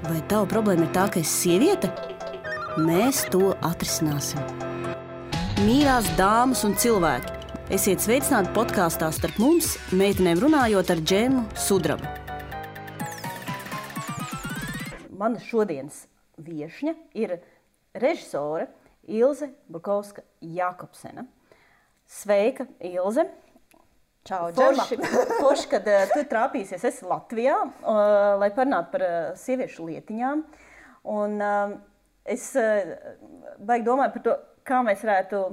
Vai tava problēma ir tā, ka esi sieviete? Mēs to atrisināsim. Mīļās dāmas un cilvēki, esiet sveicināti podkāstā Starp mums, meitenēm runājot ar Džemu Sudrabu. Mana šodienas viešņa ir režisore Ilze Bukovska-Jakobsena. Sveika, Ilze! Čau, Džema! Forši, kad tu trāpīsies, esi Latvijā, lai parunātu par sieviešu lietiņām. Un es baigi domāju par to, kā mēs varētu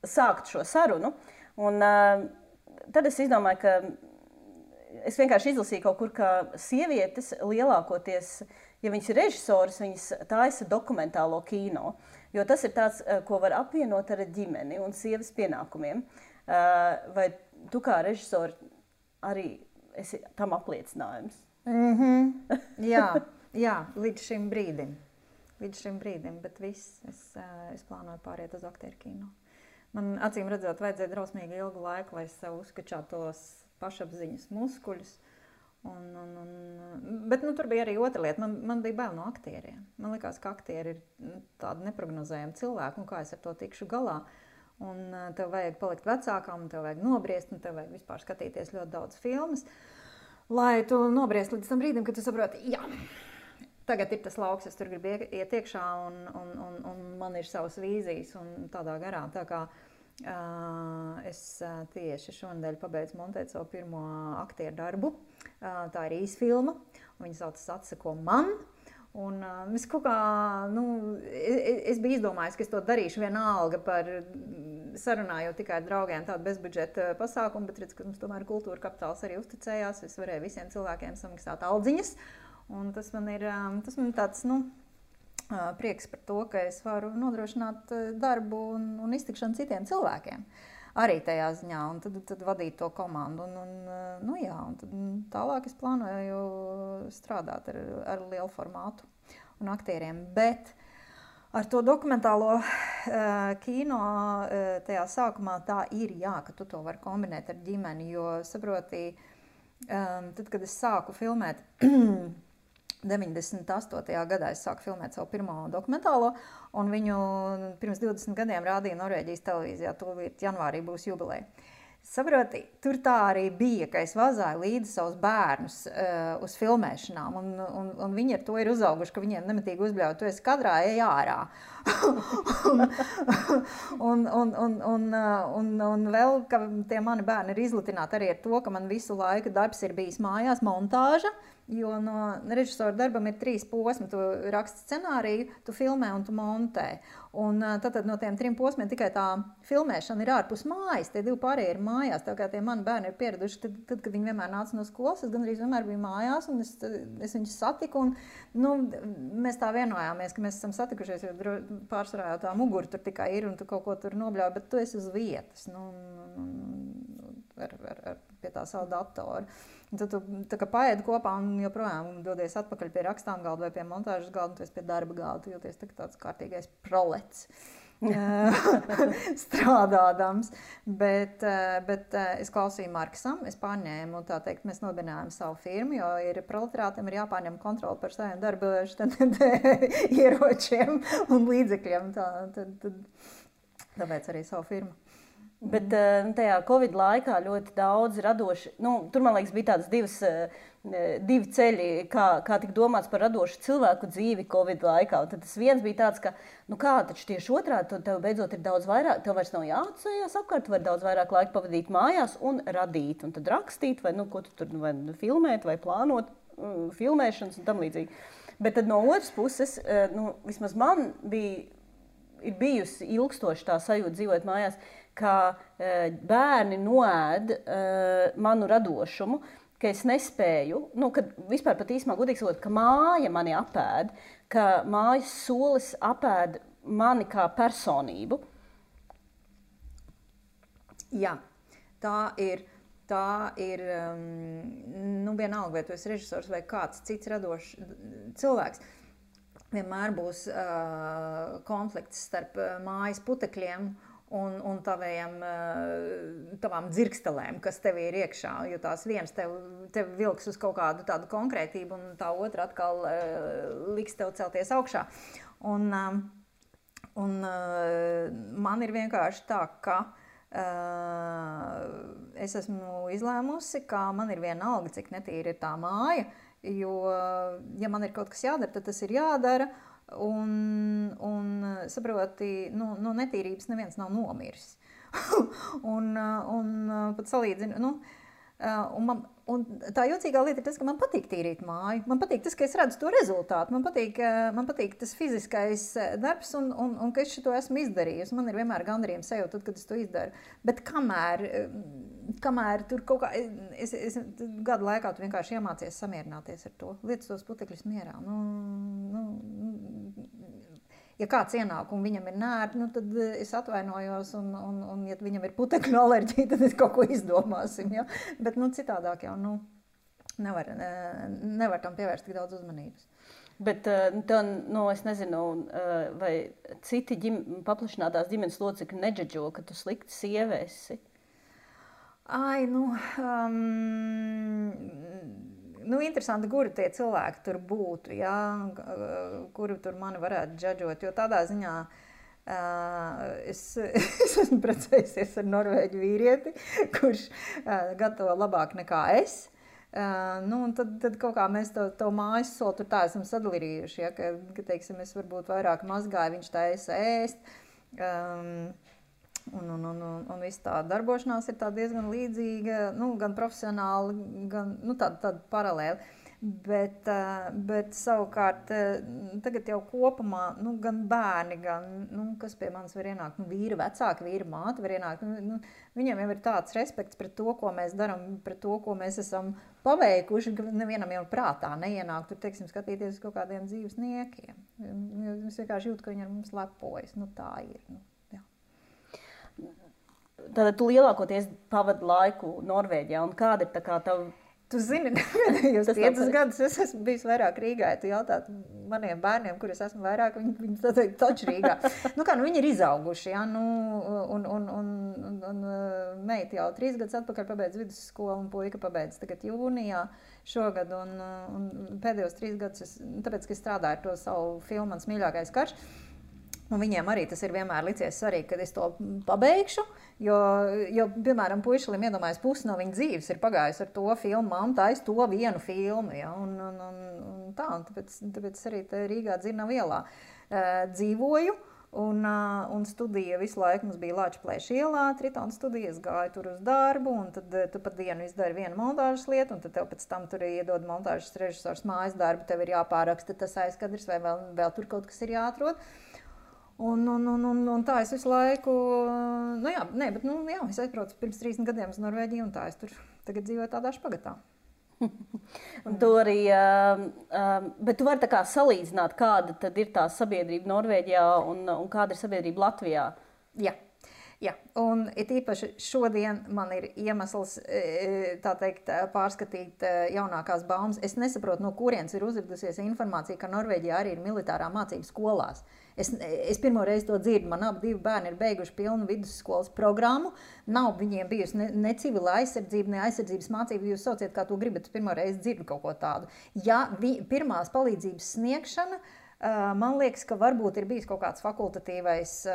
sākt šo sarunu. Un tad es izdomāju, ka es vienkārši izlasīju kaut kur, ka sievietes lielākoties, ja viņas ir režisoras, viņas taisa dokumentālo kino. Jo tas ir tāds, ko var apvienot ar ģimeni un sievas pienākumiem. Vai tu kā režisori arī esi tam apliecinājums? Jā, līdz šim brīdim. Bet viss, es plānoju pāriet uz aktieru kino. Man acīm redzot, vajadzēja drausmīgi ilgu laiku, lai es sev uzskačātos pašapziņas muskuļus. Bet tur bija arī otra lieta. Man bija bail no aktieriem. Man likās, ka aktieri ir tādi neprognozējami cilvēki, un kā es ar to tikšu galā. Un tev vajag palikt vecākam, un tev vajag nobriest, un tev vajag vispār skatīties ļoti daudz filmas, lai tu nobriest līdz tam brīdim, kad tu saproti, jā, tagad ir tas lauks, es tur gribu iet iekšā, un man ir savas vīzijas, un tādā garā. Tā kā es tieši šonadēļ pabeidzu montēt savu pirmo aktieru darbu. Tā ir īsfilma, un viņa saucas Atsako man. Un es kaut kā, es biju izdomājis, ka es to darīšu vienalga par sarunājot tikai ar draugiem tādu bezbudžeta pasākumu, bet redz, ka mums tomēr kultūra kapitāls arī uzticējās. Es varēju visiem cilvēkiem samaksāt aldziņas, un tas man ir tāds, prieks par to, ka es varu nodrošināt darbu un iztikšanu citiem cilvēkiem. Arī tajā ziņā, un tad vadīt to komandu. Un tad tālāk es plānoju strādāt ar lielu formātu un aktieriem. Bet ar to dokumentālo kino tajā sākumā tā ir, jā, ka tu to vari kombinēt ar ģimeni, jo saproti, tad, kad es sāku filmēt 98. gadā es sāku filmēt savu pirmo dokumentālo, un viņu pirms 20 gadiem rādīja Norvēģijas televīzijā, tūlīt janvārī būs jubileja. Saproti, tur tā arī bija, ka es vazāju līdzi savus bērnus uz filmēšanām, un viņi ar to ir uzauguši, ka viņiem nemitīgi uzbļauj, tu esi kadrā, ej ārā. un vēl, ka tie mani bērni ir izlutināti arī ar to, ka man visu laiku darbs ir bijis mājās, montāža, jo no režisora darbam ir 3 posmi. Tu raksti scenāriju, tu filmē un tu montē. Un tad no tiem 3 posmiem tikai tā filmēšana ir ārpus mājas, tie 2 pārējie ir mājās. Tā kā tie mani bērni ir pieraduši, tad kad viņi vienmēr nāca no skolas, es gandrīz vienmēr biju mājās, un es viņus satiku. Un, mēs tā vienojāmies, ka mēs esam satikušies, jo pārsvarā jau tā mugura tur tikai ir, un tu kaut ko tur nobļauj, bet tu esi uz vietas, pie tā savu datoru. Un tad tu tā kā paēdi kopā un joprojām dodies atpakaļ pie rakstām galda vai pie montāžas galda, un tu esi pie darba galda, tu jūties tāds kārtīgais prolets strādādams. Bet es klausīju Marksam, es pārņēmu, tā teikt, mēs nobinājām savu firmu, jo proletariātiem ir jāpārņem kontroli par saviem darba ieročiem un līdzekļiem. Tāpēc arī savu firmu. Bet tajā Covid laikā ļoti daudz radoši, tur, man liekas, bija tādas divi ceļi, kā tik domāts par radošu cilvēku dzīvi Covid laikā. Un tad tas viens bija tāds, ka, taču tieši otrādi, tev beidzot ir daudz vairāk, tev vairs nav jāatceļās apkārt, tu vari daudz vairāk laika pavadīt mājās un radīt, un tad rakstīt, vai ko tu tur vai filmēt, vai plānot filmēšanas un tam līdzīgi. Bet tad no otras puses, vismaz man ir bijusi ilgstoši tā sajūta dzīvot mājās, ka bērni noēd manu radošumu, ka es nespēju, kad vispār pat īsumā godīgi sakot, ka māja mani apēd, ka mājas solis apēd mani kā personību. Jā, tā ir vienalga, vai tu esi režisors vai kāds cits radošs cilvēks. Vienmēr būs konflikts starp mājas putekļiem un tavām dzirkstelēm, kas tev ir iekšā, jo tās viens tev vilks uz kaut kādu tādu konkrētību, un tā otra atkal liks tev celties augšā. Un man ir vienkārši tā, ka es esmu izlēmusi, ka man ir vienalga, cik netīra ir tā māja, jo, ja man ir kaut kas jādara, tad tas ir jādara, un saproti, no netīrības neviens nav nomiris. un pat salīdzinu, un tā jocīgā lieta ir tas, ka man patīk tīrīt māju. Man patīk tas, ka es redzu to rezultātu. Man patīk tas fiziskais darbs un ka es šo esmu izdarījusi. Man ir vienmēr gandarījums sajūta, tad, kad es to izdaru. Bet kamēr tur kaut kā... Es gadu laikā tu vienkārši iemācies samierināties ar to. Lietas tos putekļus mierā. Ja kāds ienāk un viņam ir nērti, tad es atvainojos, un ja viņam ir putekļu alerģija, tad es kaut ko izdomāsim. Ja? Bet citādāk jau nevar tam pievērst tik daudz uzmanības. Bet es nezinu, vai citi paplašinātās ģimenes locekļi neģeģo, ka tu slikti sieva esi? Interesanti, kuri tie cilvēki tur būtu, ja? Kuri tur mani varētu džadžot, jo tādā ziņā es esmu precējusies ar norvēģu vīrieti, kurš gatavo labāk nekā es. Un tad kaut kā mēs to mājas soli tur tā esam sadalījuši, ja? Ka teiksim, es varbūt vairāk mazgāju, viņš taisa ēst. Un viss tā darbošanās ir tā diezgan līdzīga, gan profesionāli, gan tāda paralēli. Bet savukārt tagad jau kopumā, gan bērni, gan, kas pie manis var ienākt, vīra vecāki, vīra māte var ienākt, viņam jau ir tāds respekts pret to, ko mēs daram, pret to, ko mēs esam paveikuši, ka nevienam jau prātā neienāk tur, teiksim, skatīties uz kaut kādiem dzīvesniekiem. Es vienkārši jūtu, ka viņi ar mums lepojas, tā ir, Tātad tu lielākoties pavadi laiku Norvēģijā, un kāda ir tā kā tavu... Tu zini, pēdējos 5 gadus es esmu bijis vairāk Rīgā, ja tu jautāt maniem bērniem, kur es esmu vairāk, viņi teikt taču Rīgā. Viņi ir izauguši, ja, un meita jau 3 gadus atpakaļ pabeidz vidusskolu, un puika pabeidz tagad jūnijā šogad, un pēdējos 3 gadus, tāpēc, ka es strādāju ar to savu filmu Mans mīļākais karš, un viņiem arī tas ir vienmēr licies svarīgi, kad es to pabeigšu, jo piemēram, puišalim iedomājas pusi no viņa dzīves ir pagājusi ar to filmu, mamma taisa to vienu filmu, ja, un tāpēc arī Rīgā Dzirnavu ielā dzīvoju, un studija visu laiku mums bija Lāčplēša ielā, Tritona studija, es gāju tur uz darbu, un tad tu pat dienu izdari vienu montāžas lietu, un tad tev pēc tam tur iedod montāžas režisors mājas darbu, tev ir jāpāraksta tas aizkadrs, vai vēl tur kaut kas ir jāatrod. Un tā es visu laiku, es aizbraucu pirms 30 gadiem uz Norvēģiju, un tā es tur tagad dzīvoju tādā špagatā. Un tu arī, bet tu vari tā kā salīdzināt, kāda tad ir tā sabiedrība Norvēģijā un kāda ir sabiedrība Latvijā? Jā, un it īpaši šodien man ir iemesls, tā teikt, pārskatīt jaunākās baumas. Es nesaprotu, no kurienes ir uzradusies informācija, ka Norvēģijā arī ir militārā mācība skolās. Es pirmo reizi to dzirdu, man abi bērni ir beiguši pilnu vidusskolas programmu, nav viņiem bijusi ne civila aizsardzība, ne aizsardzības mācība, jūs sauciet, kā to gribat, pirmo reizi dzirdu kaut ko tādu. Ja pirmās palīdzības sniegšana, man liekas, ka varbūt ir bijis kaut kāds fakultatīvais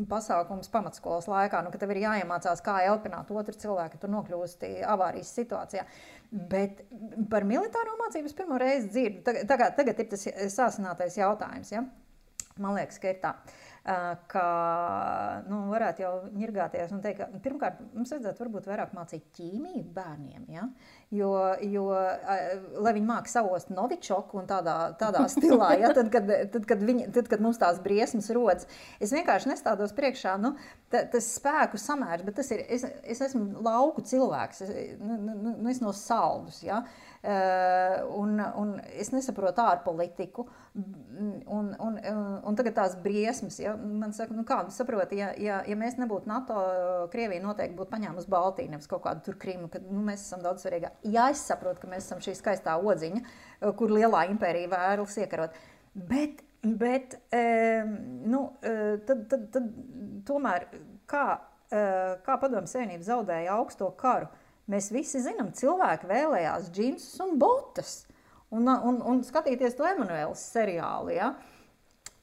pasākums pamatskolas laikā, ka tev ir jāiemācās, kā elpināt otru cilvēku, ka tu nokļūsti avārijas situācijā. Bet par militāro mācības pirmo reizi dzirdu. Tagad ir tas sāsinātais jautājums. Ja? Man liekas, ka ir tā, ka varētu jau ņirgāties un teikt, ka pirmkārt mums vajadzētu varbūt vairāk mācīt ķīmiju bērniem, ja? Jo lai viņi māk savost novičoku un tādā stilā, ja? tad, kad mums tās briesmas rodas, es vienkārši nestādos priekšā, tas spēku samērs, bet tas ir, es esmu lauku cilvēks, es no Saldus, ja? Un es nesaprotu ārpolitiku, un tagad tās briesmas, ja, man saka, kā saproti, ja mēs nebūtu NATO, Krievija noteikti būtu paņēmusi Baltiju, nevis kaut kādu tur Krimu, kad mēs esam daudz svarīgāk. Jā, es saprotu, ka mēs esam šī skaistā odziņa, kur lielā impērija vēlas iekarot, bet Bet tad tomēr, kā Padomju Savienība zaudēja augsto karu, mēs visi zinām, cilvēki vēlējās džinsus un botas. Un skatīties to Emanuēlas seriālu, ja?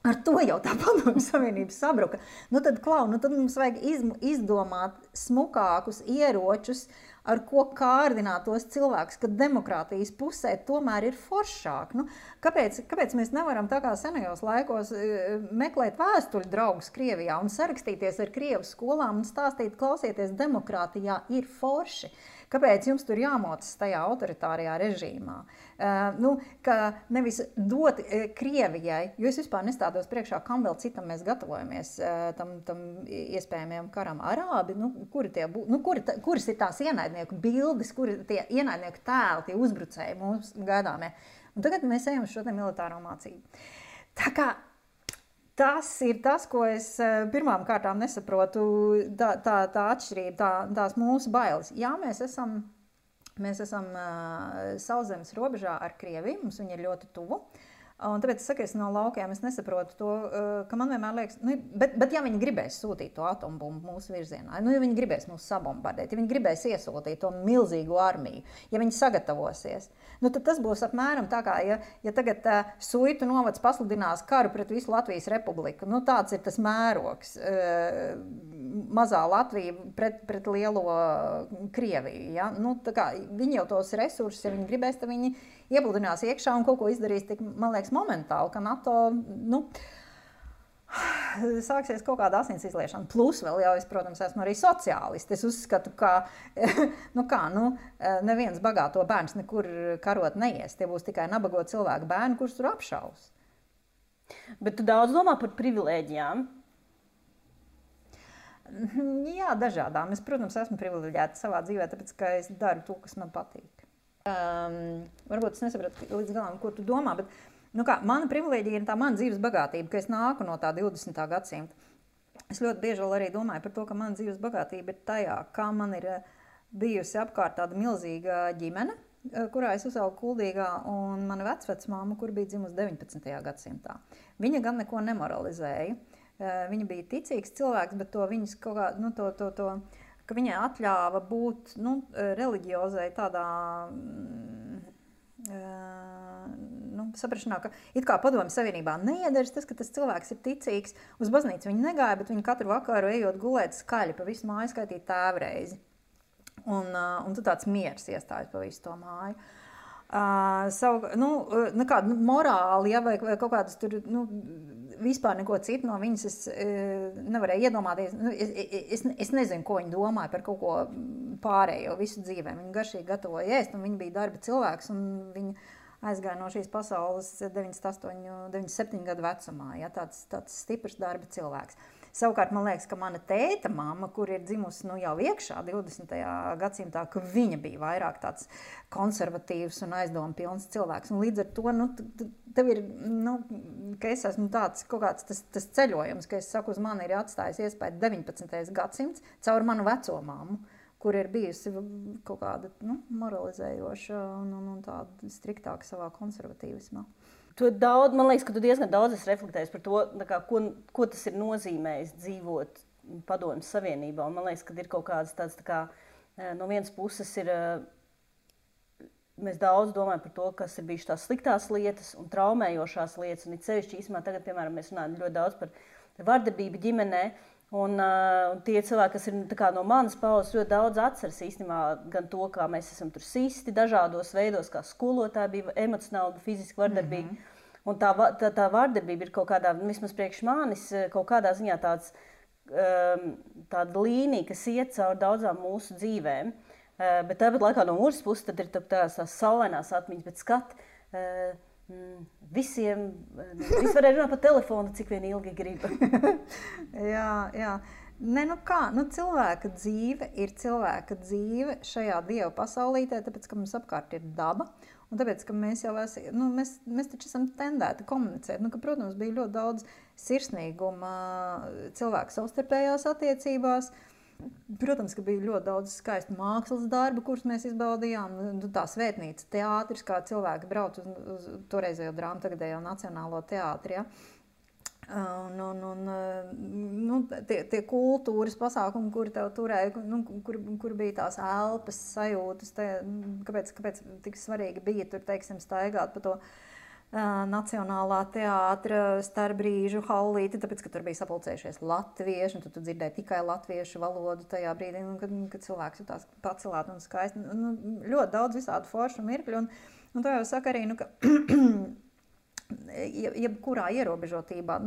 Ar to jau tā Padomju Savienība sabruka. Tad mums vajag izdomāt smukākus ieročus, ar ko kārdināt tos cilvēkus, ka demokrātijas pusē tomēr ir foršāk. Kāpēc mēs nevaram tā kā senajos laikos meklēt vēstuļu draugus Krievijā un sarakstīties ar Krievu skolām un stāstīt, klausieties, demokrātijā ir forši? Kāpēc jums tur jāmocas tajā autoritārajā režīmā? Ka nevis dot Krievijai, jo es vispār nestādos priekšā, kam vēl citam mēs gatavojamies tam iespējamajam karam. Arābi, kuras ir tās ienaidnieku bildes, kuri tie ienaidnieku tēli, tie uzbrucēji mums gaidāmie. Un tagad mēs ejam uz šo militāro mācību. Tā kā tas ir tas, ko es pirmām kārtām nesaprotu, tā atšķirība, tās mūsu bailes. Jā, mēs esam sauszemes robežā ar Krieviju, mums viņi ir ļoti tuvu. Un tāpēc es saku, es no laukiem es nesaprotu to, ka man vienmēr liekas, bet ja viņi gribēs sūtīt to atombumbu mūsu virzienā, ja viņi gribēs mūs sabombardēt, ja viņi gribēs iesūtīt to milzīgu armiju, ja viņi sagatavosies, tad tas būs apmēram tā kā, ja tagad Suitu novads pasludinās karu pret visu Latvijas republiku, tāds ir tas mērogs, mazā Latvija pret lielo Krieviju, ja? Tā kā viņi jau tos resursus, ja viņi gribēs, tad viņi iepludinās iekšā un kaut ko izdarīs tik, man liekas, momentāli, ka NATO, sāksies kaut kāda asins izliešana. Plus vēl jau es, protams, esmu arī sociālisti. Es uzskatu, ka, neviens bagāto bērns nekur karot neies. Tie būs tikai nabago cilvēku bērni, kurus tur apšaus. Bet tu daudz domā par privilēģijām? Jā, dažādām. Es, protams, esmu privileģēta savā dzīvē, tāpēc, ka es daru to, kas man patīk. Varbūt es nesapratu līdz galam, ko tu domā, bet mana privilēģija ir tā mana dzīves bagātība, ka es nāku no tā 20. gadsimta. Es ļoti bieži vēl arī domāju par to, ka mana dzīves bagātība ir tajā, kā man ir bijusi apkārt tāda milzīga ģimene, kurā es uzaugu Kuldīgā, un mana vecvecmāma, kur bija dzimusi 19. gadsimtā. Viņa gan neko nemoralizēja. Viņa bija ticīgs cilvēks, bet to viņas kaut kā, ka viņai atļāva būt reliģiozai tādā saprašanā, ka it kā Padomju Savienībā neiederas tas, ka tas cilvēks ir ticīgs. Uz baznīcu viņi negāja, bet viņi katru vakaru ejot gulēt skaļi pa visu māju skaitīt tēvreizi. Un tu tāds miers iestājas pa visu to māju. Kāda morāli, ja, vai kaut kādas tur, vispār neko citu no viņas es nevarēju iedomāties. Es nezinu, ko viņi domāja par kaut ko pārējo visu dzīvē. Viņi garšīgi gatavoja ēst, un viņi bija darba cilvēks, un viņi aizgāja no šīs pasaules 97 gadu vecumā. Ja, tāds stiprs darba cilvēks. Savukārt, man liekas, ka mana tēta mamma, kur ir dzimusi jau iekšā 20. gadsimtā, ka viņa bija vairāk tāds konservatīvs un aizdomu pilns cilvēks. Un līdz ar to, tev ir, ka es esmu tāds kaut kāds tas ceļojums, ka es saku, uz mani ir atstājis iespēju 19. gadsimts caur manu veco mammu, kur ir bijusi kaut kāda moralizējoša un tāda striktāka savā konservatīvismā. Man liekas, ka tu diezgan daudz esi reflektējis par to, ko tas ir nozīmējis dzīvot Padomju Savienībā. Un man liekas, ka ir kaut kādas tādas, no vienas puses ir, mēs daudz domājam par to, kas ir bijušas tās sliktās lietas un traumējošās lietas. Un it sevišķi īstenībā tagad, piemēram, mēs runājam ļoti daudz par vardarbību ģimenē. Un tie cilvēki, kas ir no manas paudzes, ļoti daudz atceras īstenībā gan to, kā mēs esam tur sisti dažādos veidos, kā skolotāji bija emocionāli, fiziski vardarbīgi. Un tā vardarbība ir kaut kādā, vismaz priekš manis, kaut kādā ziņā tāda līnija, kas iet cauri daudzām mūsu dzīvēm. Bet tāpat laikā no otras puses tad ir tās saulainās atmiņas, bet skat, visi varēja runāt pa telefonu, cik vien ilgi grib. Jā. Cilvēka dzīve ir cilvēka dzīve šajā Dieva pasaulītē, tāpēc, ka mums apkārt ir daba, un tāpēc, ka mēs jau mēs taču esam tendēti komunicēt. Ka, protams, bija ļoti daudz sirsnīguma cilvēku savstarpējās attiecībās, Protams, ka bija ļoti daudz skaistu mākslas darbu, kurus mēs izbaudījām. Tā svētnīca, teātris, kā cilvēki brauc uz toreizējo drāmu, tagadējo Nacionālo teātri. Ja? Tie kultūras pasākumi, kuri tev turēja, kur bija tās elpas sajūtas, kāpēc tik svarīgi bija tur, teiksim, staigāt pa to Nacionālā teātra starpbrīžu hallīti, tāpēc, ka tur bija sapulcējušies latvieši, un tu dzirdēji tikai latviešu valodu tajā brīdī, kad cilvēks jutās pacelāt un skaisti. Ļoti daudz visādu foršu mirkļu, un to jau saka arī, ka jebkurā ierobežotībā,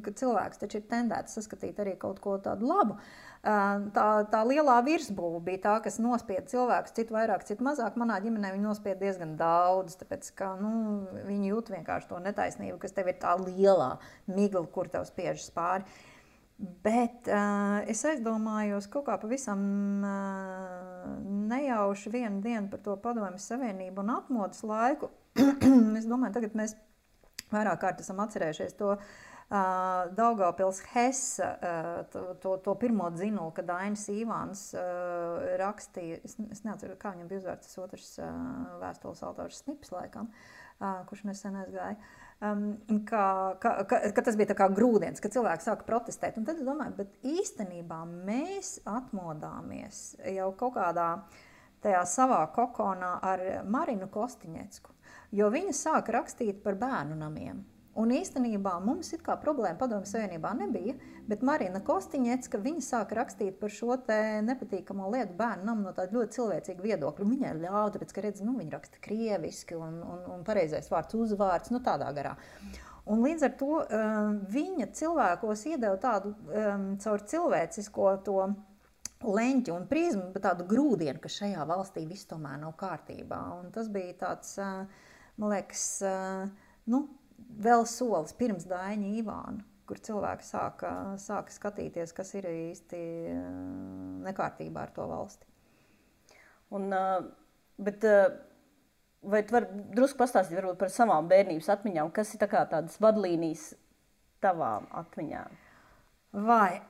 ka cilvēks taču ir tendēts saskatīt arī kaut ko tādu labu. Tā lielā virsbūve bija tā, kas nospieda cilvēkus, citu vairāk, citu mazāk. Manā ģimenē viņi nospieda diezgan daudz, tāpēc, ka viņi jūt vienkārši to netaisnību, kas tev ir tā lielā migla, kur tev spiežas pāri. Bet es aizdomājos kaut kā pavisam nejauši vienu dienu par to Padomju Savienību un atmodas laiku. Es domāju, tagad mēs vairāk kārt esam atcerējušies to Daugavpils Hesa, to pirmo dzinulu, kad Ainis Īvāns rakstīja, es neatceru, kā viņam bija uzvārds, tas otrs vēstules autors Snips laikam, kurš nesen aizgāja, ka tas bija tā kā grūdienis, ka cilvēki sāka protestēt. Un tad es domāju, bet īstenībā mēs atmodāmies jau kaut kādā tajā savā kokonā ar Marinu Kostiņecku, jo viņa sāka rakstīt par bērnu namiem. Un īstenībā mums it kā problēma Padomju Savienībā nebija, bet Marina Kostiņecka, viņa sāka rakstīt par šo te nepatīkamo lietu bērnu namu no tāda ļoti cilvēcīga viedokļa. Viņai ļauj, tāpēc, ka redz, viņa raksta krieviski un pareizais vārds uzvārds, tādā garā. Un līdz ar to viņa cilvēkos iedeva tādu caur cilvēcisko to leņķi un prizmu, bet tādu grūdienu, ka šajā valstī viss tomēr nav kārtībā. Un tas bija tāds, man liekas, vēl solis pirms Daiņa Īvāna, kur cilvēki sāka skatīties, kas ir īsti nekārtībā ar to valsti. Bet vai tu vari drusku pastāstīt varbūt par savām bērnības atmiņām, kas ir tādas vadlīnijas tavām atmiņām? Vai,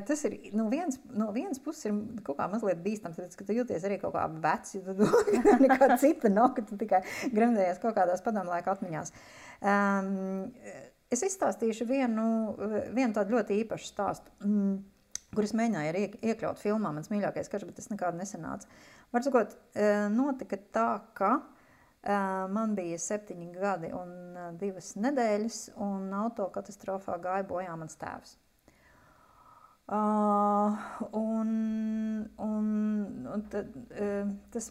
tas ir, no vienas puses ir kaut kā mazliet bīstams, tāpēc, ka tu jūties arī kaut kā vecs, jo tu nekā cita nav, ka tu tikai gremdējies kaut kādās padomlaika atmiņās. Es izstāstīšu vienu tādu ļoti īpašu stāstu, kur es mēģināju arī iekļaut filmā, mans mīļākais karš, bet tas nekādu nesanāca. Var sakot, notika tā, ka man bija 7 gadi un 2 nedēļas, un autokatastrofā gāja bojā mans tēvs. Tas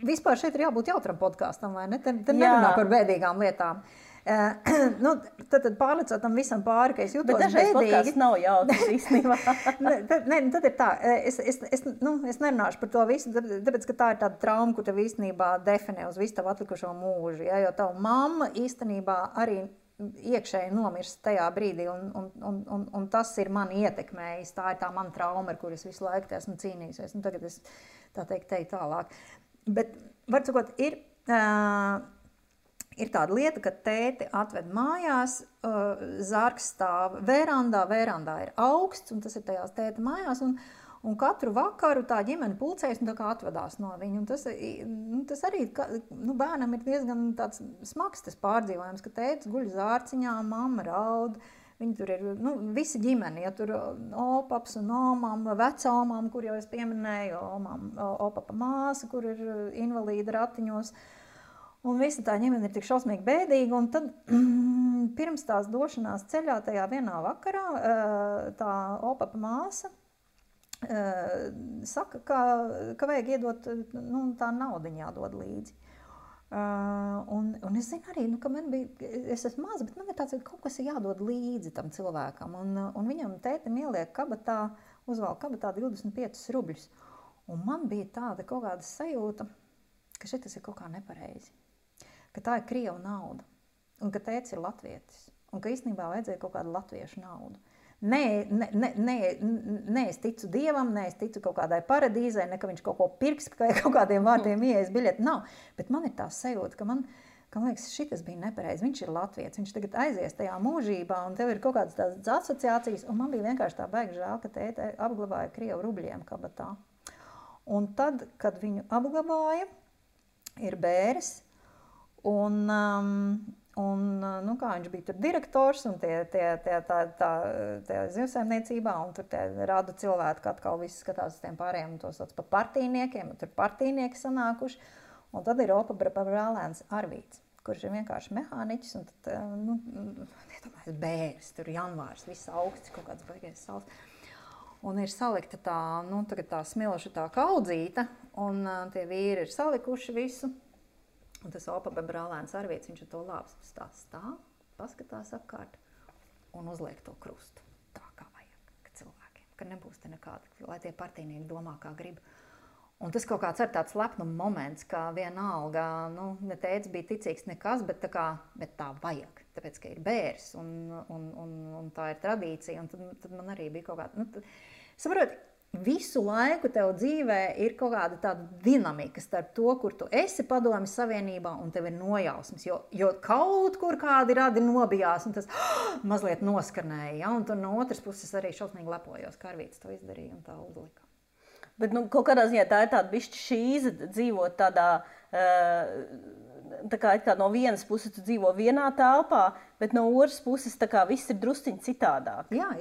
vispār šeit ir jābūt jautram podkāstam, vai ne? Te nerunā par bēdīgām lietām. Tad pārlecot tam visam pāri, ka es jūtos bēdīgi. Bet dažreiz podkāsts nav jautrs īstenībā. Tad ir tā, es nerunāšu par to visu, tāpēc, ka tā ir tāda trauma, kur tev īstenībā definē uz visu tavu atlikušo mūžu. Ja? Jo tavu mamma īstenībā arī iekšēji nomirst tajā brīdī, un tas ir mani ietekmējis. Tā ir tā mana trauma, ar kur es visu laiku esmu cīnījusies. Tagad es tā teikt teju tālāk. Bet, var sakot, ir tāda lieta, ka tēti atved mājās, zargs stāv verandā ir augsts, un tas ir tajās tēta mājās, un katru vakaru tā ģimene pulcējas un tā kā atvedās no viņu. Un tas arī bērnam ir diezgan tāds smags tas pārdzīvojums, ka tētis guļ zārciņā, mamma raud, viņi tur ir, visa ģimene, ja tur opaps un omam, vecomam, kur jau es pieminēju, opapa māsa, kur ir invalīda ratiņos. Un visa tā ģimene ir tik šausmīgi bēdīga, un tad pirms tās došanās ceļā tajā vienā vakarā tā opapa māsa saka, ka vajag iedot, tā naudiņa jādod līdzi. Un es zinu arī, ka man bija, es esmu maza, bet man ir tāds, ka kaut kas ir jādod līdzi tam cilvēkam, un viņam tētim ieliek kabatā, uzvalk kabatā 25 rubļus. Un man bija tāda kaut kāda sajūta, ka šitas ir kaut kā nepareizi. Ka tā ir Krievu nauda, un ka tētis ir latvietis, un ka īstenībā vajadzēja kaut kādu latviešu naudu. Nē, es ticu Dievam, nē, es ticu kaut kādai paradīzē, ne ka viņš kaut ko pirks, ka kaut kādiem vārdiem ieejas biļeti, nav. Bet man ir tā sajūta, ka man ka man liekas, šitas bija nepareizi. Viņš ir latvietis, viņš tagad aizies tajā mūžībā, un tev ir kaut kādas tādas asociācijas, un man bija vienkārši tā baigi žēl, ka tēte apglabāja Krievu rubļiem kabatā. Un tad, kad viņu apglabāja, ir bēris, un kā viņš bija tur direktors, un tie zivsaimniecībā, un tur tie radu cilvēki atkal visi skatās uz tiem pārējiem, un tos sauc par partijniekiem, un tur partijnieki sanākuši. Un tad ir Opa brālēns Arvīts, kurš ir vienkārši mehāniķis, un tad, iedomājies, bēris, tur janvārs, viss augsts, kaut kāds baigais saules. Un ir salikta tā smiloša tā kaudzīta, un tie vīri ir salikuši visu. Un tas Opa brālēns Arvīts, viņš ar to lāps stāv, paskatās apkārt un uzliek to krustu. Tā kā vajag cilvēkiem, ka nebūs te nekāda, lai tie partijnieki domā, kā grib. Un tas kaut kāds ir tāds lepnuma moments, ka vienalga, ne teica bija ticīgs nekas, bet tā vajag, tāpēc, ka ir bērs un tā ir tradīcija, un tad man arī bija kaut kāda, saproti, visu laiku tev dzīvē ir kaut kāda tāda dinamika starp to, kur tu esi Padomju Savienībā un tev ir nojausmas, jo kaut kur kādi radi nobijās un tas mazliet noskarnēja, ja? Un tur no otras puses arī šausmīgi lepojos, ka Arvīts to izdarīja un tā uzlika. Bet kaut kādā ziņā tā ir tāda bišķi šīze dzīvot tādā, tā kā no vienas puses tu dzīvo vienā telpā, bet no otras puses tā kā viss ir drusciņi citādāk. Jā.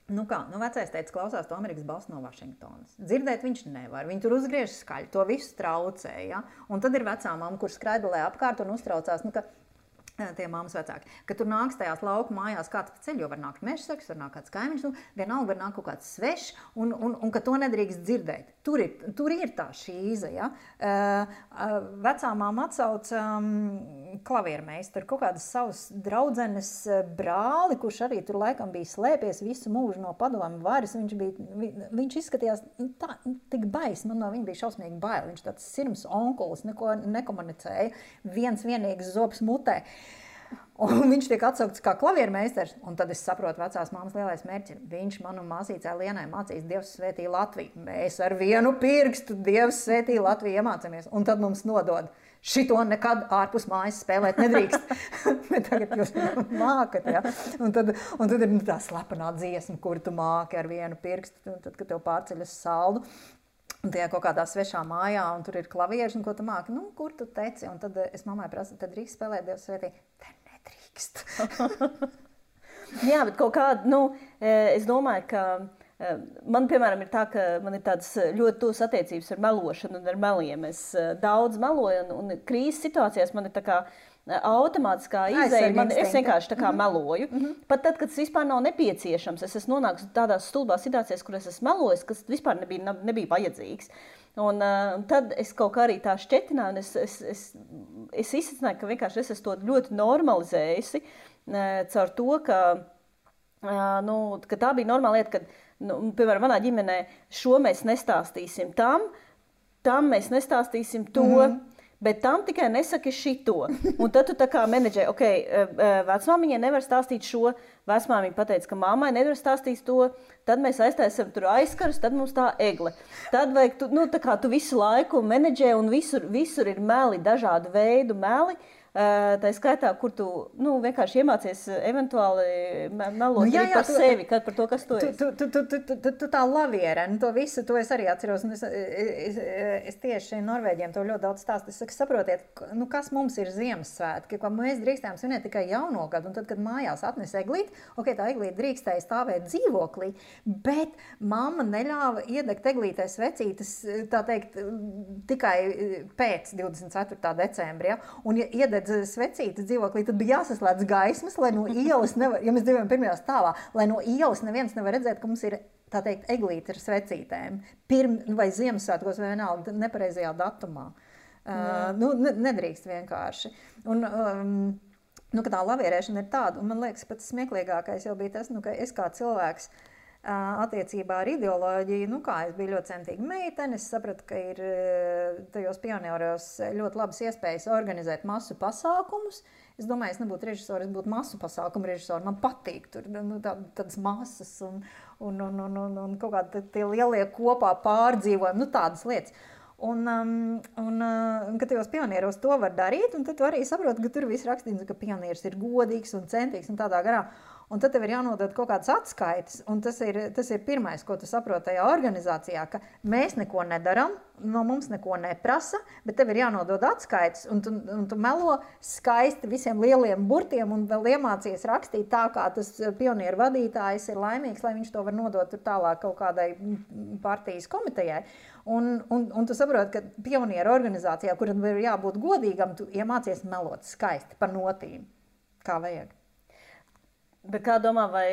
Vecais teica, klausās to Amerikas balss no Vašingtonas. Dzirdēt viņš nevar, viņi tur uzgriež skaļi, to visu traucē, ja? Un tad ir vecā mamma, kur skraidulē apkārt un uztraucās, ka tie mammas vecāki, ka tur nāks tajās lauku mājās kāds pa ceļu, jo var nākt mežsargs, var nākt kāds kaimiņš, vienalga var nākt kaut kāds svešs, un ka to nedrīkst dzirdēt. Tur ir tā šīze, ja? Vecā mamma atsauc klaviermeistaru, kaut kādas savas draudzenes brāli, kurš arī tur laikam bija slēpies visu mūžu no padomju varas, viņš izskatījās tik bais, man no viņa bija šausmīgi bail, viņš tāds sirms onkulis, neko nekomunicēja, vienīgs zobs mutē. Un viņš tiek atsaukts kā klaviermeistars, un tad es saprotu vecās mammas lielais mērķis. Viņš man un māsīcē Lienai mācīs Dievs svētī Latviju. Mēs ar vienu pirkstu Dievs svētī Latviju iemācāmies, un tad mums nodod. Šito nekad ārpus mājas spēlēt nedrīkst. Bet tagad jūs mākat, ja? Un tad ir tā slepenā dziesma, kur tu māki ar vienu pirkstu, tad, kad tev pārceļ uz saldu. Un tajā kaut kādā svešā mājā, un tur ir klavieris, un ko tu māki? Kur tu teci? Un tad es mammai prasu, tad drīkst spēlēt Dievs svētī? Te nedrīkst. Jā, bet kaut kāda, es domāju, ka man, piemēram, ir tā, ka man ir tādas ļoti tuvas attiecības ar melošanu un ar meliem. Es daudz meloju, un krīzes situācijās man ir tā kā automātiskā izēja, es vienkārši tā kā meloju. Pat tad, kad tas vispār nav nepieciešams, es esmu nonākusi tādās stulbās situācijās, kur es esmu melojis, kas vispār nebija vajadzīgs. Un tad es kaut kā arī tā šķetināju, un es izsacināju, ka vienkārši es esmu to ļoti normalizējusi caur to, ka tā bija normāla lieta, kad, piemēram, manā ģimenē šo mēs nestāstīsim tam mēs nestāstīsim to, bet tam tikai nesaki šito. Un tad tu tā kā menedžē, vecmāmiņai nevar stāstīt šo, vecmāmiņa pateica, ka mammai nevar stāstīt to, tad mēs aiztaisam tur aizkarus, tad mums tā egle. Tad vajag, tā kā tu visu laiku menedžē un visur ir meli, dažādu veidu meli. Tā skaitā, kur tu vienkārši iemācies eventuāli melot par sevi, par to, kas tu esi. Tu tā laviere, to visu, to es arī atceros. Es tieši Norvēģiem to ļoti daudz stāstu. Es saku, saprotiet, kas mums ir Ziemassvētki, ka mēs drīkstējām svinēt tikai jauno gadu, un tad, kad mājās atnes eglīti, tā eglīte drīkstēja stāvēt dzīvoklī, bet mamma neļāva iedegt eglītē svecītes, tā teikt, tikai pēc 24. decembra, ja? Un ja iedeg svecītas dzīvoklī, tad bija jāsaslēdz gaismas, lai no ielas nevar, ja mēs dzīvojam pirmajā stāvā, lai no ielas neviens nevar redzēt, ka mums ir, tā teikt, eglīte ar svecītēm. Vai Ziemassvētkos vai vienalga nepareizajā datumā. Nedrīkst vienkārši. Un, ka tā lavierēšana ir tāda, un man liekas, pats smieklīgākais jau bija tas, ka es kā cilvēks attiecībā ar ideoloģiju, es biju ļoti centīga meitene, es sapratu, ka ir tajos pionieros ļoti labas iespējas organizēt masu pasākumus. Es domāju, es nebūtu režisori, es būtu masu pasākumu režisori. Man patīk tur tādas masas un kaut kādi tie lielie kopā pārdzīvojumi, tādas lietas. Kad tajos pionieros to var darīt, un tad tu arī saproti, ka tur viss rakstīts, ka pionieris ir godīgs un centīgs un tādā garā. Un tad tev ir jānodod kaut kādas atskaites, un tas ir pirmais, ko tu saproti tajā organizācijā, ka mēs neko nedaram, no mums neko neprasa, bet tev ir jānodod atskaites, un tu melo skaisti visiem lieliem burtiem un vēl iemācies rakstīt tā, kā tas pionieru vadītājs ir laimīgs, lai viņš to var nodot tur tālāk kaut kādai partijas komitejai. Un tu saproti, ka pionieru organizācijā, kuram ir jābūt godīgam, tu iemācies melot skaisti par notīm, kā vajag. Bet kā domā, vai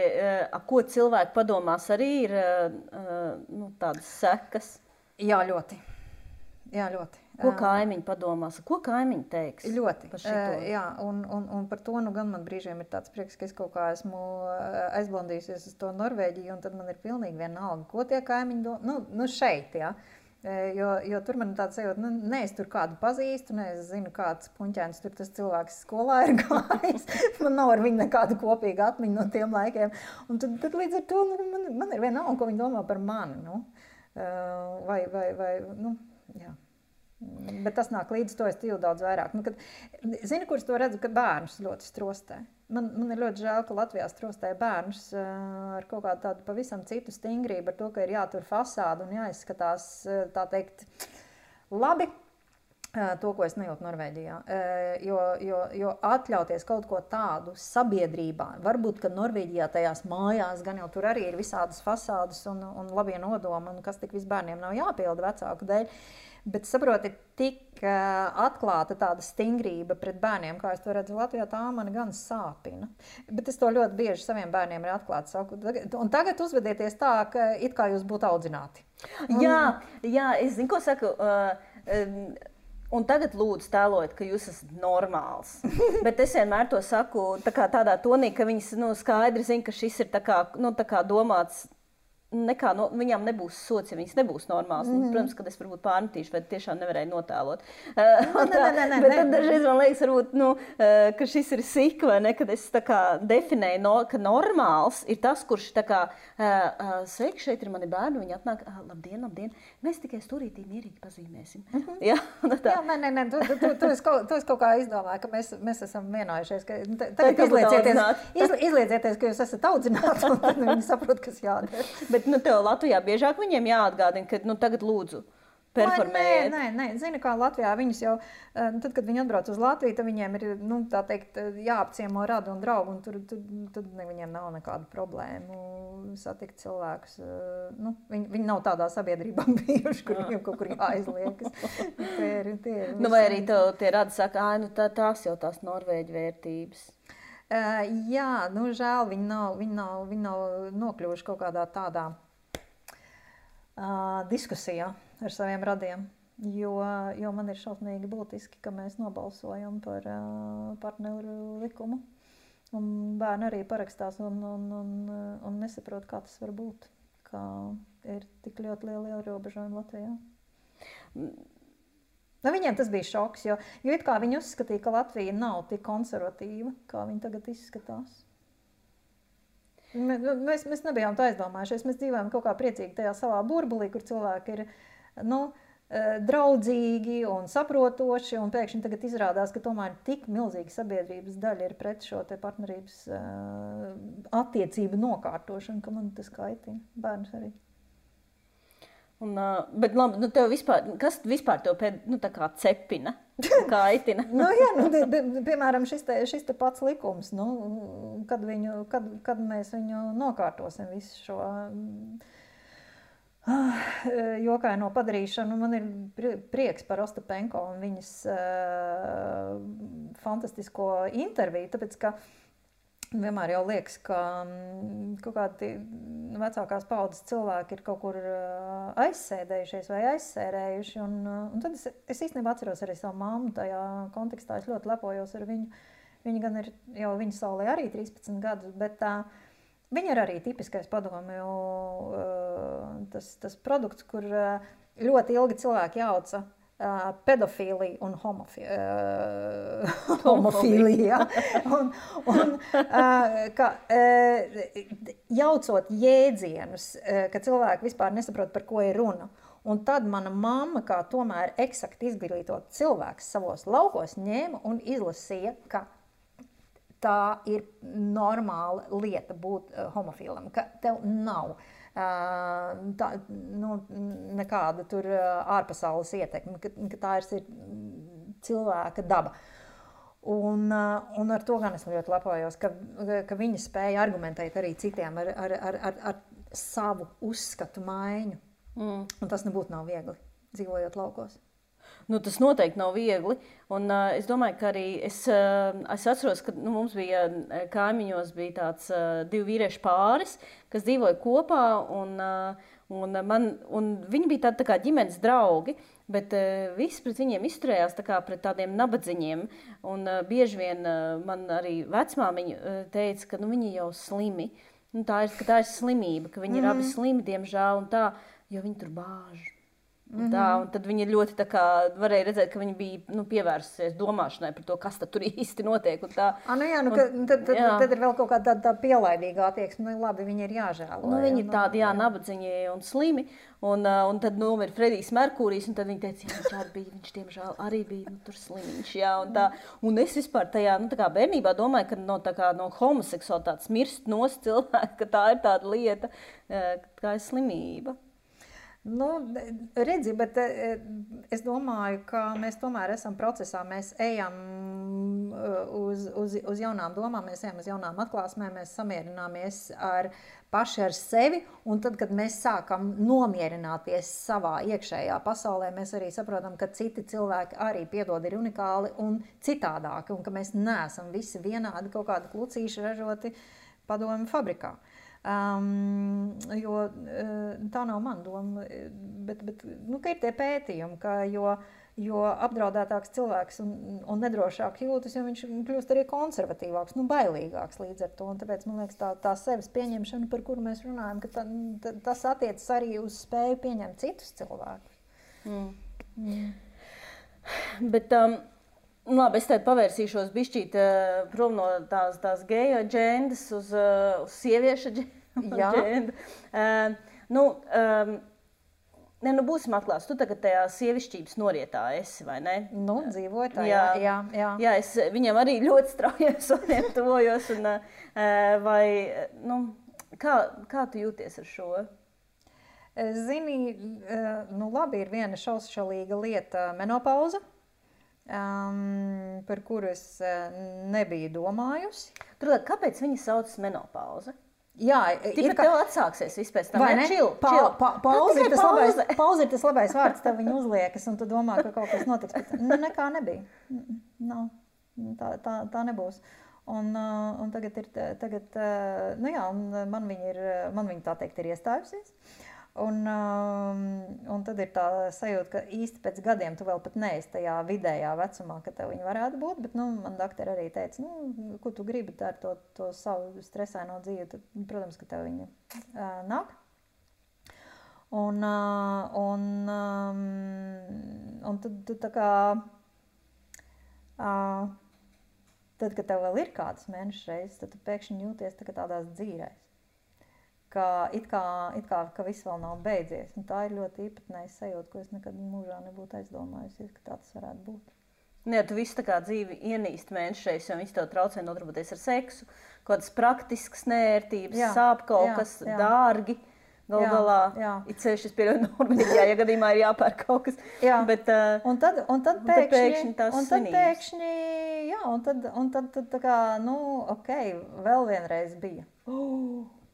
ko cilvēki padomās arī ir tādas sekas? Jā, ļoti. Ko kaimiņi padomās? Ko kaimiņi teiks? Ļoti. Par šito? Jā, un par to gan man brīžiem ir tāds prieks, ka es kaut kā esmu aizblandījusies uz to Norvēģiju, un tad man ir pilnīgi vienalga, ko tie kaimiņi domā. Šeit, jā. Jo tur man ir tāds sajūta, ne es tur kādu pazīstu, ne es zinu, kāds puņķēns tur tas cilvēks skolā ir gājis. Man nav ar viņu nekādu kopīgu atmiņu no tiem laikiem. Un tad līdz ar to man ir vienalga, ko viņi domā par mani. Jā. Bet tas nāk līdz to es tīvu daudz vairāk. Zini, kurš to redzu, ka bērnus ļoti strostē. Man ir ļoti žēl, ka Latvijā strostē bērnus ar kaut kādu tādu pavisam citu stingrību, ar to, ka ir jātur fasādu un jāizskatās, tā teikt, labi. To, ko es nejūtu Norvēģijā. Jo atļauties kaut ko tādu sabiedrībā, varbūt, ka Norvēģijā tajās mājās gan jau tur arī ir visādas fasādas un labie nodomi, un kas tik viss bērniem nav jāpilda vecāku dēļ. Bet, saproti, tik atklāta tāda stingrība pret bērniem, kā es to redzu Latvijā, tā mani gan sāpina. Bet es to ļoti bieži saviem bērniem ir atklāti saku. Un tagad uzvedieties tā, ka it kā jūs būtu audzināti. Jā, es zinu, ko saku. Un tagad lūdzu tēlojiet, ka jūs esat normāls. Bet es vienmēr to saku tādā tonī, ka viņas skaidri zina, ka šis ir tā kā domāts. Viņām nebūs sots, ja viņas nebūs normāls. Protams, kad es varbūt pārmetīšu, vai tiešām nevarēju notēlot. Bet tad dažreiz man liekas, varbūt, ka šis ir sik, vai ne, kad es tā kā definēju, ka normāls ir tas, kurš tā kā, sveiki, šeit ir mani bērni, viņi atnāk, labdien, mēs tikai stūrītī mierīgi pazīmēsim. Jā, nē, tu esi kaut kā izdomāju, ka mēs esam vienojušies, ka tagad izliecieties, ka jūs esat audzināti, un tad viņi saprot, kas jādara. Bet tev Latvijā biežāk viņiem jāatgādina, ka tagad lūdzu performējiet. Nē, zini, kā Latvijā viņus jau, tad, kad viņi atbrauc uz Latviju, tad viņiem ir, tā teikt, jāapciemo radu un draugu, un tad viņiem nav nekādu problēmu satikt cilvēkus. Viņi nav tādā sabiedrībā bijuši, kur viņiem kaut kur jāizliekas. Vai arī tie radi saka, tās jau tās Norvēģu vērtības. Jā, žēl, viņi nav nokļuvuši kaut kādā tādā diskusijā ar saviem radiem, jo man ir šausmīgi būtiski, ka mēs nobalsojam par partneru likumu, un bērni arī parakstās un nesaprot, kā tas var būt, kā ir tik ļoti liela ierobežojuma Latvijā. Viņiem tas bija šoks, jo it kā viņi uzskatīja, ka Latvija nav tik konservatīva, kā viņi tagad izskatās. Mēs nebijām tā aizdomājušies, mēs dzīvojam kaut kā priecīgi tajā savā burbulī, kur cilvēki ir draudzīgi un saprotoši, un pēkšņi tagad izrādās, ka tomēr tik milzīga sabiedrības daļa ir pret šo te partnerības attiecību nokārtošanu, ka man tas kaitina, bērns arī. Bet labi, tev vispār, kas vispār tev tā kā cepina, kaitina? Piemēram, šis te pats likums, kad mēs viņu nokārtosim visu šo jokaino padarīšanu. Man ir prieks par Ostapenko un viņas fantastisko interviju, tāpēc, ka vienmēr jau liekas, ka kaut kādi vecākās paudzes cilvēki ir kaut kur aizsēdējušies vai aizsērējuši. Un tad es īstenībā atceros arī savu mammu tajā kontekstā. Es ļoti lepojos ar viņu. Viņa gan ir jau viņa saulē arī 13 gadus, bet viņa ir arī tipiskais padomju tas produkts, kur ļoti ilgi cilvēki jauca pedofīlija un homofīlija. Jaucot jēdzienus, ka cilvēki vispār nesaprot, par ko ir runa. Un tad mana mamma, kā tomēr eksakti izglītot cilvēks savos laukos, ņēma un izlasīja, ka tā ir normāla lieta būt homofilam, ka tev nav nekāda tur ārpasaules ietekme, ka tā ir cilvēka daba. Un ar to gan es ļoti lepojos, ka viņa spēja argumentēt arī citiem ar savu uzskatu maiņu. Un tas nebūtu nav viegli, dzīvojot laukos. Tas noteikti nav viegli. Un es domāju, ka arī es atceros, ka mums bija kaimiņos bija tāds 2 vīriešu pāris, kas dzīvoja kopā, un viņi bija tādi tā kā ģimenes draugi, bet visi pret viņiem izturējās tā kā pret tādiem nabadziņiem. Un bieži vien man arī vecmāmiņa teica, ka viņi jau slimi. Tā ir slimība, ka viņi ir abi slimi, diemžēl, un tā, jo viņi tur bāž. Un tad viņi ļoti tā kā varēja redzēt, ka viņi bija pievērsusies domāšanai par to, kas tad tur īsti notiek. Tad ir vēl kaut kāda tā pielaidīga attieksme. Labi, viņi ir jāžēlo. Viņi ir tādi, nabadziņi un slimi. Un tad nomira Fredijs Merkūrijs, un tad viņi teica, viņš diemžēl arī bija tur slimiņš. Un es vispār tajā bērnībā domāju, ka no homoseksualitātes mirst nost cilvēki, ka tā ir tāda lieta, kā ir slimība. Redzi, bet es domāju, ka mēs tomēr esam procesā, mēs ejam uz jaunām domām, mēs ejam uz jaunām atklāsmēm, mēs samierināmies paši ar sevi, un tad, kad mēs sākam nomierināties savā iekšējā pasaulē, mēs arī saprotam, ka citi cilvēki arī piedod ir unikāli un citādāki, un ka mēs neesam visi vienādi kaut kādi klucīši ražoti padomju fabrikā. Jo tā nav mana doma, bet ka ir tie pētījumi, ka jo apdraudētāks cilvēks un nedrošāk jūtas, jo viņš kļūst arī konservatīvāks, bailīgāks līdz ar to. Un tāpēc, man liekas, tā sevis pieņemšana, par kuru mēs runājam, ka tas attiecas arī uz spēju pieņemt citus cilvēkus. Bet labi, es tad pavērsīšos bišķīt prom no tās geju aģendas uz sieviešu aģendu. Būsim atklāts, tu tagad tajā sievišķības norietā esi, vai ne? Dzīvoju tā, jā. Jā, es viņam arī ļoti straujiem soniem tuvojos. Kā tu jūties ar šo? Zini, labi, ir viena šaušalīga lieta menopauza. Par kuru es nebiju domājusi. Turklāt, kāpēc viņa saucas menopauze? Jā, Tikpat tev atsāksies vispēc tam. Vai ne? Pauze ir tas labais vārds, tev viņa uzliekas, un tu domā, ka kaut kas notiks. Bet nekā nebija. Tā nebūs. Un tagad man viņa tā teikt ir iestājusies. Un tad ir tā sajūta, ka īsti pēc gadiem tu vēl pat neesi tajā vidējā vecumā, ka tev viņa varētu būt, bet man doktori arī teica, ko tu gribi ar to savu stresaino dzīvi, tad, protams, ka tev viņa nāk. Un tad tu tā kā, tad, kad tev vēl ir kādas mēnešu reizes, tad tu pēkšņi jūties tā kā tādās dzīrēs. Ka it kā ka viss vēl nav beidzies. Un tā ir ļoti īpatnēja sajūta, ko es nekad mūžā nebūtu aizdomājusies, ka tā tas varētu būt. Jā, tu visu tā kā dzīvi ienīst mēnešreiz, jo viss tev traucē nodarboties ar seksu, kaut kādas praktiskas nērtības, sāp kaut kas dārgi. Galā, it sevišķi es pieļauju Norvēģijā, ja gadījumā ir jāpērk kaut kas. Jā, bet, un tad pēkšņi tās svinības. Un tad tā kā, vēl vienreiz bija.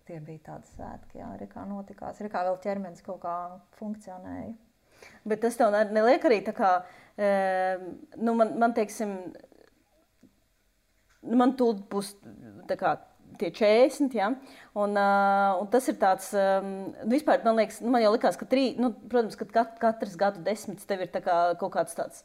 Tie bija tādi svētki, jā, kā notikās, kā vēl ķermenis kaut kā funkcionēja. Bet tas tev neliek arī tā kā, man teiksim, man tūlīt būs tā kā tie 40, ja? Un tas ir tāds, vispār man liekas, man jau likās, ka protams, ka katrs gadu desmits tev ir tā kā kaut kāds tāds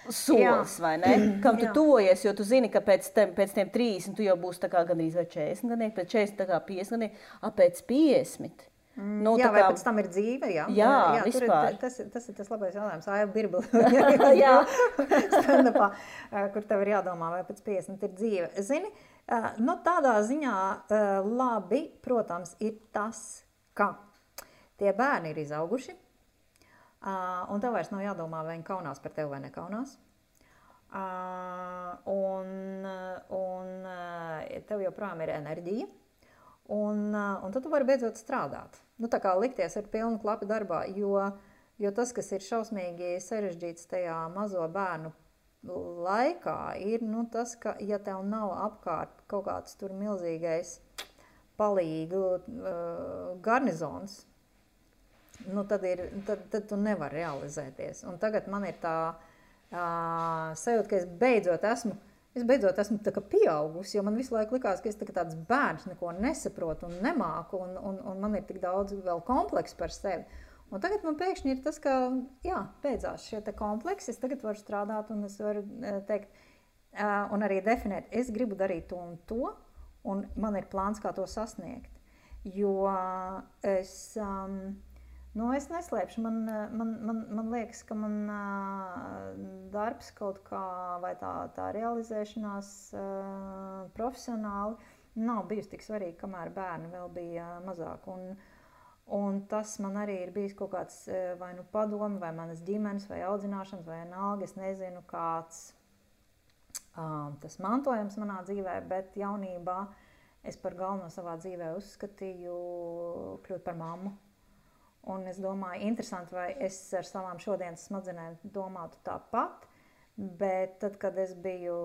solis, vai ne? Kam tu tuvojies, jo tu zini, ka pēc tiem 30 tu jau būsi tā kā gandrīz vai 40 gadnieki, pēc 40 tā kā 50 gadnieki, pēc 50. Vai pēc tam ir dzīve, jā? Jā, vispār. Tas ir tas labais jautājums. Aiva Birbla, stand-upā, kur tev ir jādomā, vai pēc 50 ir dzīve. Zini, tādā ziņā labi, protams, ir tas, ka tie bērni ir izauguši, Un tev vairs nav jādomā, vai viņi kaunās par tevi vai nekaunās. Un tev joprojām ir enerģija. Un tad tu vari beidzot strādāt. Nu, tā kā likties ar pilnu klapu darbā, jo tas, kas ir šausmīgi sarežģīts tajā mazo bērnu laikā, ir tas, ka ja tev nav apkārt kaut kāds tur milzīgais palīgu garnizons, tad tu nevari realizēties. Un tagad man ir tā sajūta, ka es beidzot esmu tā kā pieaugusi, jo man visu laiku likās, ka es tāds bērns neko nesaprotu un nemāku, un man ir tik daudz vēl kompleksu par sevi. Un tagad man pēkšņi ir tas, ka, beidzās šie te kompleksi, es tagad varu strādāt un es varu teikt, un arī definēt, es gribu darīt to un to, un man ir plāns, kā to sasniegt. Jo es neslēpšu, man liekas, ka man darbs kaut kā, vai tā realizēšanās profesionāli nav bijusi tik svarīga, kamēr bērni vēl bija mazāk. Un tas man arī ir bijis kaut kāds vai padomi, vai manas ģimenes, vai audzināšanas, vai vienalga, es nezinu, kāds tas mantojums manā dzīvē, bet jaunībā es par galveno savā dzīvē uzskatīju kļūt par mammu. Un es domāju, interesanti, vai es ar savām šodienas smadzenēm domātu tāpat, bet tad, kad es biju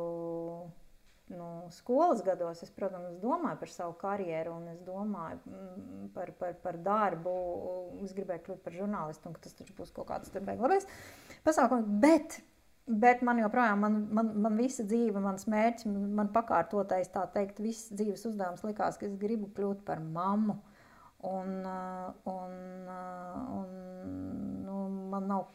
skolas gados, es, protams, domāju par savu karjeru un es domāju par darbu. Es gribēju kļūt par žurnālistu un ka tas taču būs kaut kāds labais pasākums. Bet man joprojām, man visa dzīve, mans mērķis, man pakārtotais, tā teikt, viss dzīves uzdevums likās, ka es gribu kļūt par mammu. Un man nav,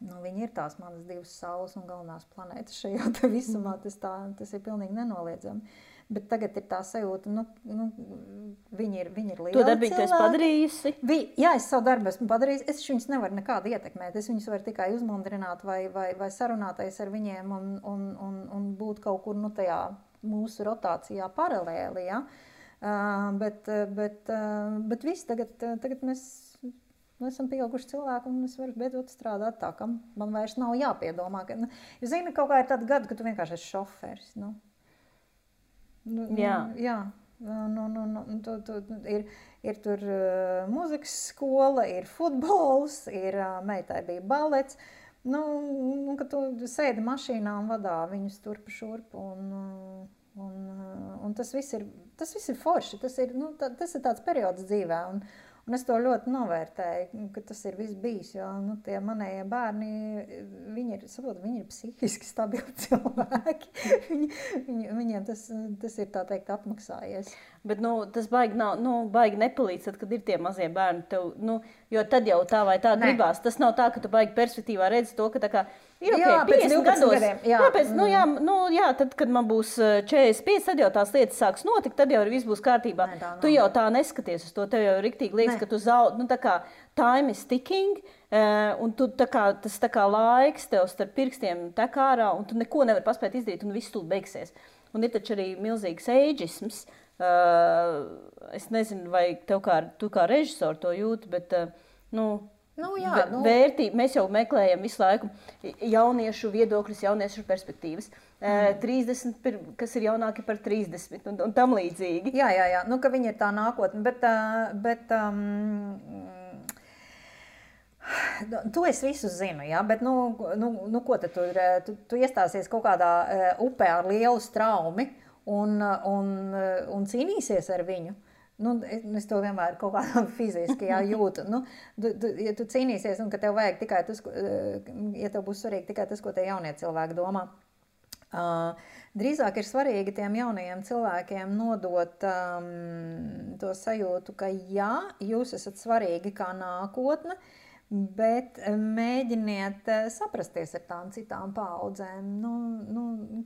viņi ir tās manas divas saules un galvenās planētas šajā te visumā, tas ir pilnīgi nenoliedzami. Bet tagad ir tā sajūta, viņi ir lieli to darbīgi tu esi padarījusi? Jā, es savu darbu esmu padarījusi, es viņus nevaru nekādi ietekmēt, es viņus varu tikai uzmundrināt vai sarunāties ar viņiem un būt kaut kur, tajā mūsu rotācijā paralēli, ja? Bet viss, tagad mēs esam pieauguši cilvēki un es varu beidzot strādāt tā, ka man vairs nav jāpiedomā. Jūs zini, kaut kā ir tāda gada, ka tu vienkārši esi šoferis. Jā. Ir tur mūzikas skola, ir futbols, meitai bija balets. Ka tu sēdi mašīnā un vadā viņus turp šurp. Un tas viss ir forši. Tas ir tāds periods dzīvē. Un es to ļoti novērtēju, ka tas ir viss bijis, jo tie manējie bērni, viņi ir psihiski stabili cilvēki. Viņiem tas ir, tā teikt, apmaksājies. Bet tas baigi nepalīdz, tad, kad ir tie mazie bērni tev, jo tad jau tā vai tā gribās. Tas nav tā, ka tu baigi perspektīvā redzi to, ka tā kā ir pēc 12 gadiem. Tad, kad man būs 45, tad jau tās lietas sāks notikt, tad jau viss būs kārtībā. Tu jau tā neskaties uz to, tev jau riktīgi liekas, ka tu zaudē, tā kā time is ticking, un tu tas laiks tev starp pirkstiem tek ārā, un tu neko nevar paspēt izdarīt, un viss tūlīt beigsies. Un ir taču arī milzīgs eidžisms. Es nezinu, vai tu kā režisori to jūti, bet vērtība. Mēs jau meklējam visu laiku jauniešu viedokļus, jauniešu perspektīvas. 30, kas ir jaunāki par 30 un tam līdzīgi. Jā. Ka viņi ir tā nākotne, bet to es visu zinu, jā, bet ko tad tu iestāsies kaut kādā upē ar lielu straumi un cīnīsies ar viņu? Es to vienmēr kaut kādā fiziski jūtu. Ja tu cīnīsies un ka tev vajag tikai tas, ja tev būs svarīgi tikai tas, ko tie jaunie cilvēki domā. Drīzāk ir svarīgi tiem jaunajiem cilvēkiem nodot to sajūtu, ka jā, jūs esat svarīgi kā nākotne, bet mēģiniet saprasties ar tām citām paaudzēm,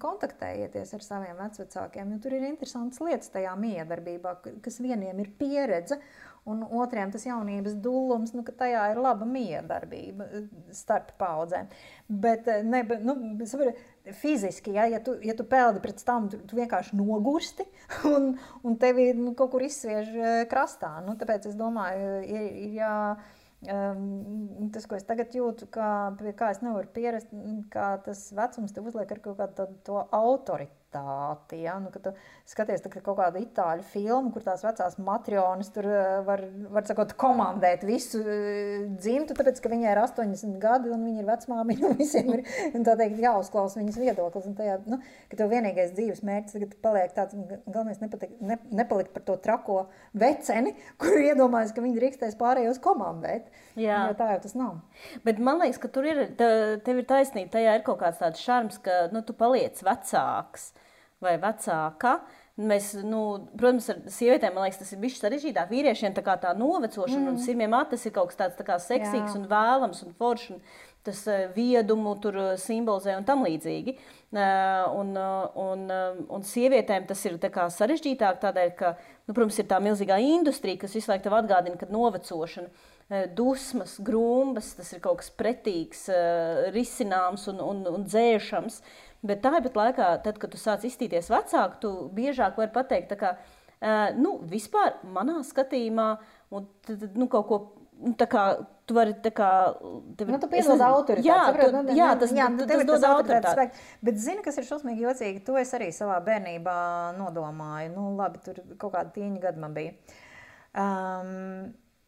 kontaktējieties ar saviem vecvecākiem, jo tur ir interesantas lietas tajā miedarbībā, kas vieniem ir pieredze un otriem tas jaunības dullums, ka tajā ir laba miedarbība starp paudzēm. Bet fiziski, ja tu peldi pret tam, tu vienkārši nogursti un tevi kaut kur izsviež krastā. Tāpēc es domāju, ir tas, ko es tagad jūtu, pie kā es nevaru pierast, kā tas vecums te uzliek ar kaut kādu to autoritāti. Ja? Kad tu skaties kaut kādu itāļu filmu, kur tās vecās matrionas tur var sakot, komandēt visu dzimtu, tāpēc, ka viņai ir 80 gadi un viņa ir vecmāmiņa un visiem ir, tā teikt, jāuzklausa viņas viedoklis. Un tajā, ka tev vienīgais dzīves mērķis tagad paliek tāds, galvenais nepalikt par to trako veceni, kur iedomājas, ka viņi drīkstēs pārējos komandēt. Jā. Jo tā jau tas nav. Bet man liekas, ka tev ir taisnība, tajā ir kaut kāds tāds šarms, ka tu paliec vecāks vai vecāka. Mēs, protams, ar sievietēm, man liekas, tas ir bišķi sarežģītāk. Vīriešiem tā novecošana un sirmiem tas ir kaut kas tāds tā kā seksīgs un vēlams un foršs. Tas viedumu tur simbolizē un tam līdzīgi. Un sievietēm tas ir tā kā sarežģītāk tādēļ, ka, protams, ir tā milzīgā industrija, kas visu laiku tev atgādina, ka novecošana, dusmas, grumbas, tas ir kaut kas pretīgs, risināms un dzēšams. Bet tāpat laikā, tad, kad tu sāc izstīties vecāku, tu biežāk vari pateikt, tā kā, vispār manā skatījumā, un kaut ko, tā kā, tu vari, tā kā... tu piedod autoritāti. Tas dod autoritāti. Bet zini, kas ir šausmīgi jocīgi, to es arī savā bērnībā nodomāju. Labi, tur kaut kāda tīņa gada man bija.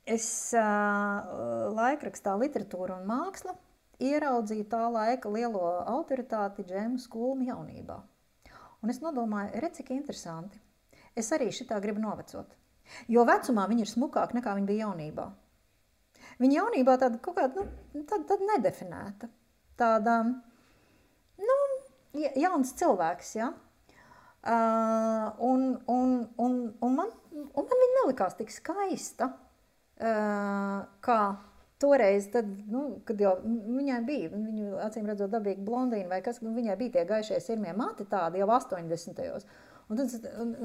Es laikrakstā Literatūra un māksla ieraudzīju tā laika lielo autoritāti Džēmu Skulmu jaunībā. Un es nodomāju, redz, cik interesanti. Es arī šitā gribu novecot. Jo vecumā viņa ir smukāka nekā viņa bija jaunībā. Viņa jaunībā tāda kaut kāda, tāda nedefinēta. Tāda, jauns cilvēks, ja? Un man viņa nelikās tik skaista, kā toreiz, tad, kad jau viņai bija, viņu acīm redzot dabīgi blondīna vai kas, viņai bija tie gaišie sirmie mati tādi jau 80. Un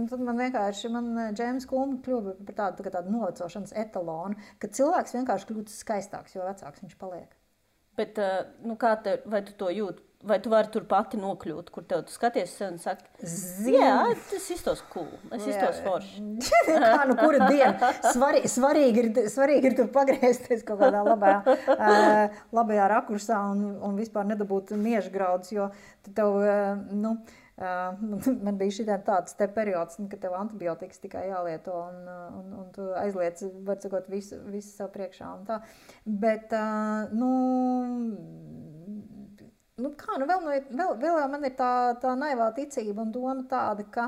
tad man vienkārši, Džēms Kulma kļuva par tādu novecošanas etalonu, ka cilvēks vienkārši kļūst skaistāks, jo vecāks viņš paliek. Bet, vai tu to jūti? Vai tu vari tur pati nokļūt, kur tu skaties un saki, jā, tas iztos cool, es iztos forši. Kā, kura diena? Svarīgi ir tur pagriezties kaut kādā labajā rakursā un vispār nedabūt miežgraudus, jo tev, man bija tāds te periods, kad tev antibiotikas tikai jālieto un tu aizliec, var sakot, visu sev priekšā un tā. Bet, vēl man ir tā naivā ticība un doma tāda, ka,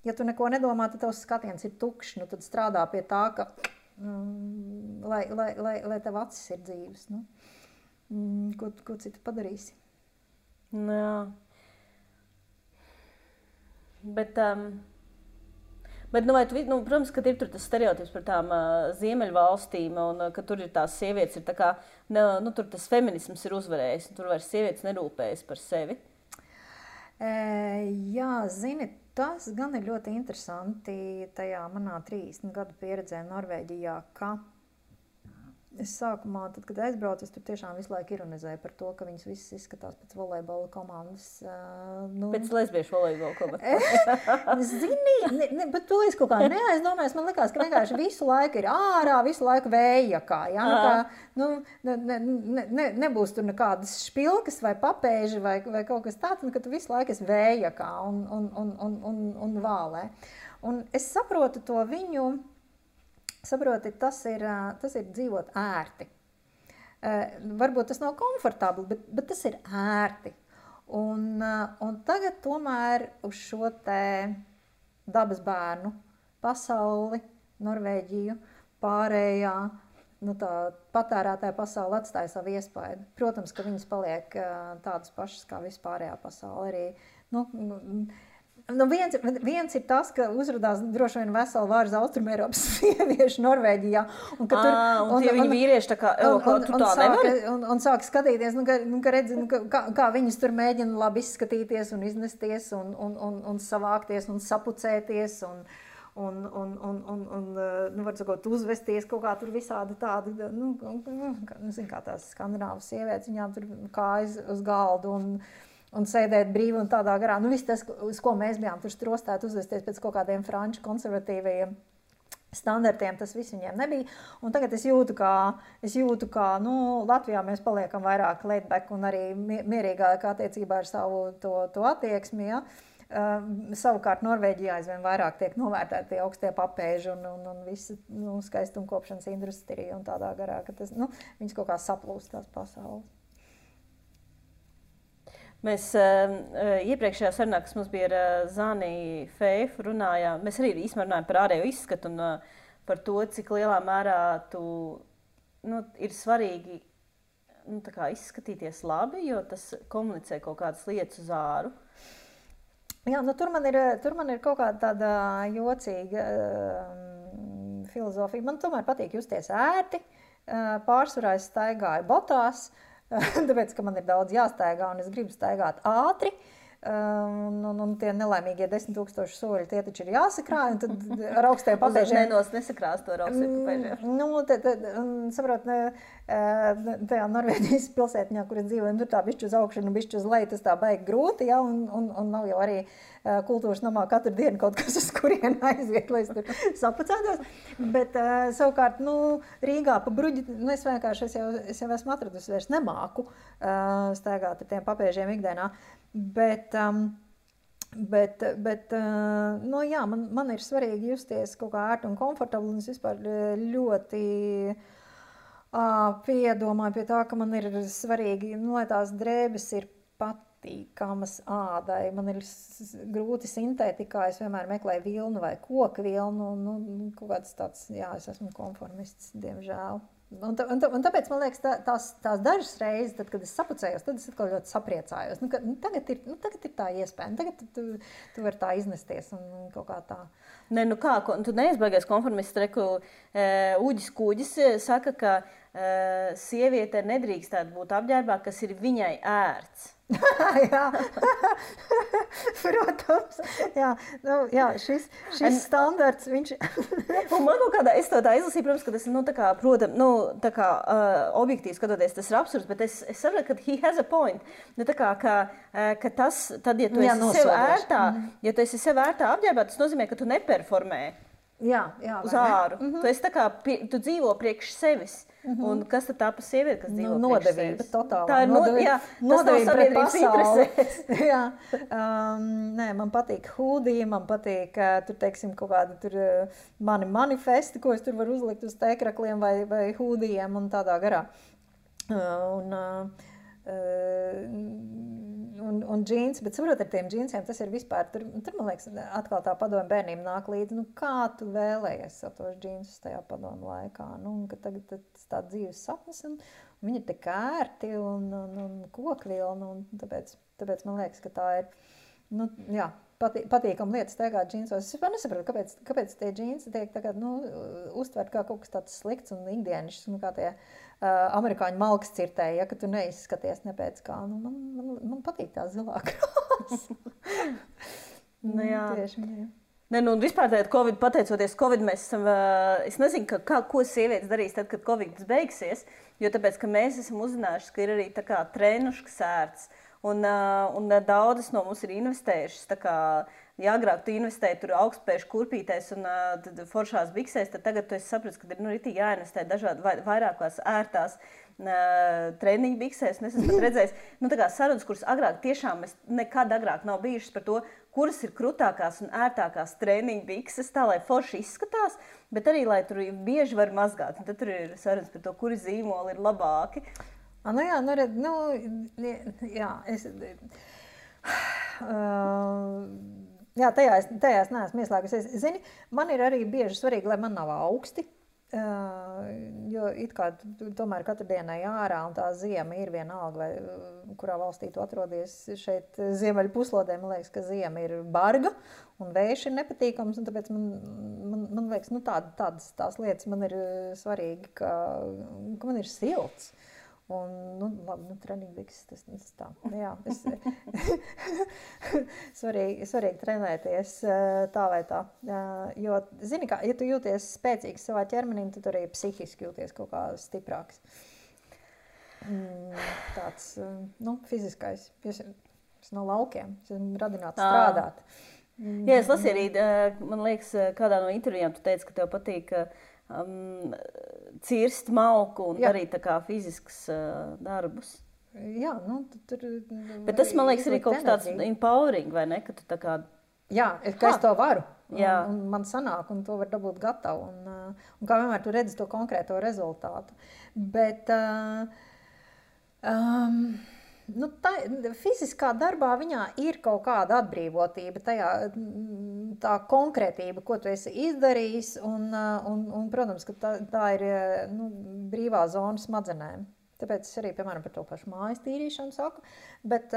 ja tu neko nedomā, tad tavs skatiens ir tukšs, tad strādā pie tā, ka, lai tev acis ir dzīves. Ko citu padarīsi? Jā. Bet protams, ka ir tur tas stereotips par tām ziemeļvalstīm un ka tur ir tās sievietes, ir tā kā, tur tas feminisms ir uzvarējis, un tur vairs sievietes nerūpējas par sevi. Jā, zini, tas gan ir ļoti interesanti tajā manā 30 gadu pieredzē Norvēģijā, ka es sākumā, tad, kad aizbraucu, es tur tiešām visu laiku ironizēju par to, ka viņas visas izskatās pēc volejbola komandas. Pēc lesbiešu volejbola komandas. Zini, bet to es kaut kā neaizdomājos. Man likās, ka vienkārši visu laiku ir ārā, visu laiku vējakā. Ja? Nebūs tur nekādas špilkas vai papēži vai kaut kas tāds, ka tu visu laiku esi vējakā un vālē. Un es saprotu to viņu. Saproti, tas ir dzīvot ērti. Varbūt tas nav komfortabli, bet tas ir ērti. Un tagad tomēr uz šo te dabas bērnu pasauli, Norvēģiju, pārējā, tā patērētāja pasauli atstāja savu iespaidu. Protams, ka viņas paliek tādas pašas kā vispārējā pasauli arī. Viens ir tas, ka uzradās droši vien vesela vārds Austrumēropas sieviešu Norvēģijā. Un tie viņi vīrieši tā kā, tu tā nevari? Un sāk skatīties, ka redzi, kā viņas tur mēģina labi izskatīties un iznesties un savākties un sapucēties var sakot, uzvesties kaut kā tur visādi tādi, zin kā tās skandināvas sievietes, viņām tur kājas uz galdu un sēdēt brīvi un tādā garā. Viss tas, uz ko mēs bijām tur strostēti uzvesties pēc kaut kādiem franču konservatīvajiem standartiem, tas viss viņiem nebija. Un tagad es jūtu, ka Latvijā mēs paliekam vairāk laid back un arī mierīgāk attiecībā ar savu to attieksmi. Ja? Savukārt Norvēģijā aizvien vairāk tiek novērtēti tie augstie papēži un visa skaistumkopšanas industrija un tādā garā, ka tas, viņas kaut kā saplūst tās pasaules. Mēs iepriekšējā sarunā, kas mums bija ar Zani Feifu, runājām, mēs arī īstenībā runājām par ārējo izskatu un par to, cik lielā mērā ir svarīgi tā kā izskatīties labi, jo tas komunicē kaut kādas lietas uz āru. Jā, tur man ir kaut kāda tāda jocīga filozofija. Man tomēr patīk justies ērti, pārsvarā es staigāju botās, tāpēc, ka man ir daudz jāstaigā un es gribu staigāt ātri. Un tie nelaimīgie 10,000 soļi, tie taču ir jāsakrāj, un tad ar augstiem papēžiem... Nesakrās to ar augstiem papēžiem. Saprot, tajā Norvēģijas pilsētiņā, kur es dzīvoju, tur tā bišķi uz augšu un bišķi uz leju, tas tā baigi grūti, ja, un nav jau arī kultūras namā katru dienu kaut kas, uz kurien aiziet, lai es tur sapacētos. Bet savukārt, Rīgā pa bruģi, es vienkārši, es jau esmu atradusi, vairs nemāku staigāt ar tiem papēžiem ikdienā. Bet jā, man ir svarīgi justies kaut kā ērti un komfortabli, un es vispār ļoti piedomāju pie tā, ka man ir svarīgi, lai tās drēbes ir patīkamas ādai. Man ir grūti sintētikā, es vienmēr meklēju vilnu vai koku vilnu, kaut kāds tāds, jā, es esmu konformists, diemžēl. Un tāpēc, man liekas, tās dažas reizes, tad, kad es sapucējos, tad es atkal ļoti sapriecājos. Tagad ir tā iespēja, tagad tu vari tā iznesties un kaut kā tā. Tu neizbaigies konformists, Uģis Kūģis saka, ka sieviete nedrīkstētu būt apģērbā, kas ir viņai ērts. Jā, protams. Jā, šis standarts, viņš... Un man kaut kādā, es to tā izlasīju, protams, ka tas, objektīvi skatoties, tas ir absurds, bet es saprotu, ka he has a point. Ka tas, tad, ja tu esi sev ērtā, ja tu esi sev ērtā apģērbā, tas nozīmē, ka tu neperformē uz āru. Tu esi tu dzīvo priekš sevis. Un kas tad tā pa sievieti, kas dzīvo nodevība, totālā. Tā ir nodevība pret pasaules. Jā. Nē, man patīk hūdija, man patīk tur, teiksim, kaut kādi tur mani manifesti, ko es tur varu uzlikt uz tēkrakliem vai hūdijiem un tādā garā. Un džīns, bet saprot, ar tiem džīnsiem tas ir vispār, tur man liekas, atkal tā padomu bērniem nāk līdzi, kā tu vēlējies ar tos džīnsus tajā padomu laikā, ka tagad tas tā dzīves sapnis, un viņi ir tik ērti un kokvilni, un tāpēc man liekas, ka tā ir, jā, patīkam lietas staigāt džīnsos. Es vispār nesapratu, kāpēc tie džīnsi tiek tagad, uztvert kā kaut kas tāds slikts un ikdienišs, kā tie amerikāņu malkas cirtēji, ja, ka tu neizskaties ne pēc kā. Man patīk tā zilā krāsa. Jā. Tieši, jā. Vispār tagad, pateicoties Covid, mēs esam, es nezinu, ko sievietes darīs tad, kad Covid beigsies, jo tāpēc, ka mēs esam uzzinājuši, ka ir arī tā kā trenuškas ērts. Un daudzas no mums ir investējušas, ja agrāk tu investēji tur augstspēšu kurpītēs un foršās biksēs, tad tagad tu esi sapratis, ka ir ritīgi jāinvestē dažādi vairākās ērtās treniņu biksēs. Un es esmu redzējis, sarunas, kuras agrāk tiešām nekad agrāk nav bijušas par to, kuras ir krutākās un ērtākās treniņu bikses, tā lai forši izskatās, bet arī, lai tur bieži var mazgāt. Un tad tur ir sarunas par to, kuri zīmoli ir labāki. Tajās neesmu ieslēgusies. Zini, man ir arī bieži svarīgi, lai man nav augsti, jo it kā tomēr katru dienai ārā un tā ziema ir vienalga, vai kurā valstī tu atrodies šeit ziemeļu puslodē, man liekas, ka ziema ir barga un vējš ir nepatīkams, un tāpēc man liekas, tādas tās lietas man ir svarīgi, ka man ir silts. Labi, treniņbikses, tas tā. Jā, svarīgi trenēties tā vai tā. Jo, zini kā, ja tu jūties spēcīgs savā ķermenī, tad arī psihiski jūties kaut kā stiprāks. Tāds, fiziskais. Es no laukiem, es esmu radināts strādāt. Jā, es lasīju arī, man liekas, kādā no intervijām tu teici, ka tev patīk cirst malku un darīt tā kā fizisks darbus. Jā, tur... Bet tas, man liekas, arī kaut kas tāds empowering, vai ne? Ka tu tā kā... Jā, ka es to varu. Un man sanāk, un to var dabūt gatavu. Un kā vienmēr tu redzi to konkrēto rezultātu. Bet... fiziskā darbā viņā ir kaut kāda atbrīvotība, tā konkrētība, ko tu esi izdarījis, un protams, ka tā ir brīvā zona smadzenēm. Tāpēc es arī, piemēram, par to pašu mājas tīrīšanu saku, bet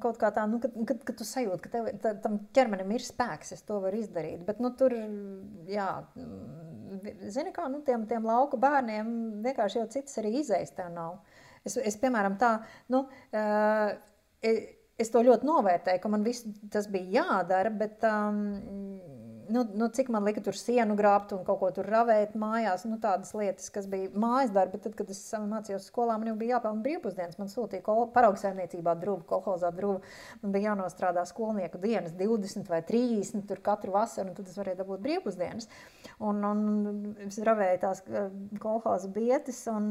kaut kā tā, kad tu sajūti, ka tam ķermenim ir spēks, es to varu izdarīt, bet tur, jā, zini kā, tiem lauku bērniem vienkārši jau citas arī izējas tev nav. Es piemēram, tā, es to ļoti novērtēju, ka man viss tas bija jādara, bet cik man lika tur sienu grābt un kaut ko tur ravēt mājās, tādas lietas, kas bija mājas darbi, bet tad, kad es mācījos skolā, man jau bija jāpelna brīvpusdienas, man sūtīja paraugsaimniecībā druvu, kolhozā druvu, man bija jānostrādā skolnieku dienas 20 vai 30 tur katru vasaru, un tad es varēju dabūt brīvpusdienas. Un es ravēju tās kolhoza bietes un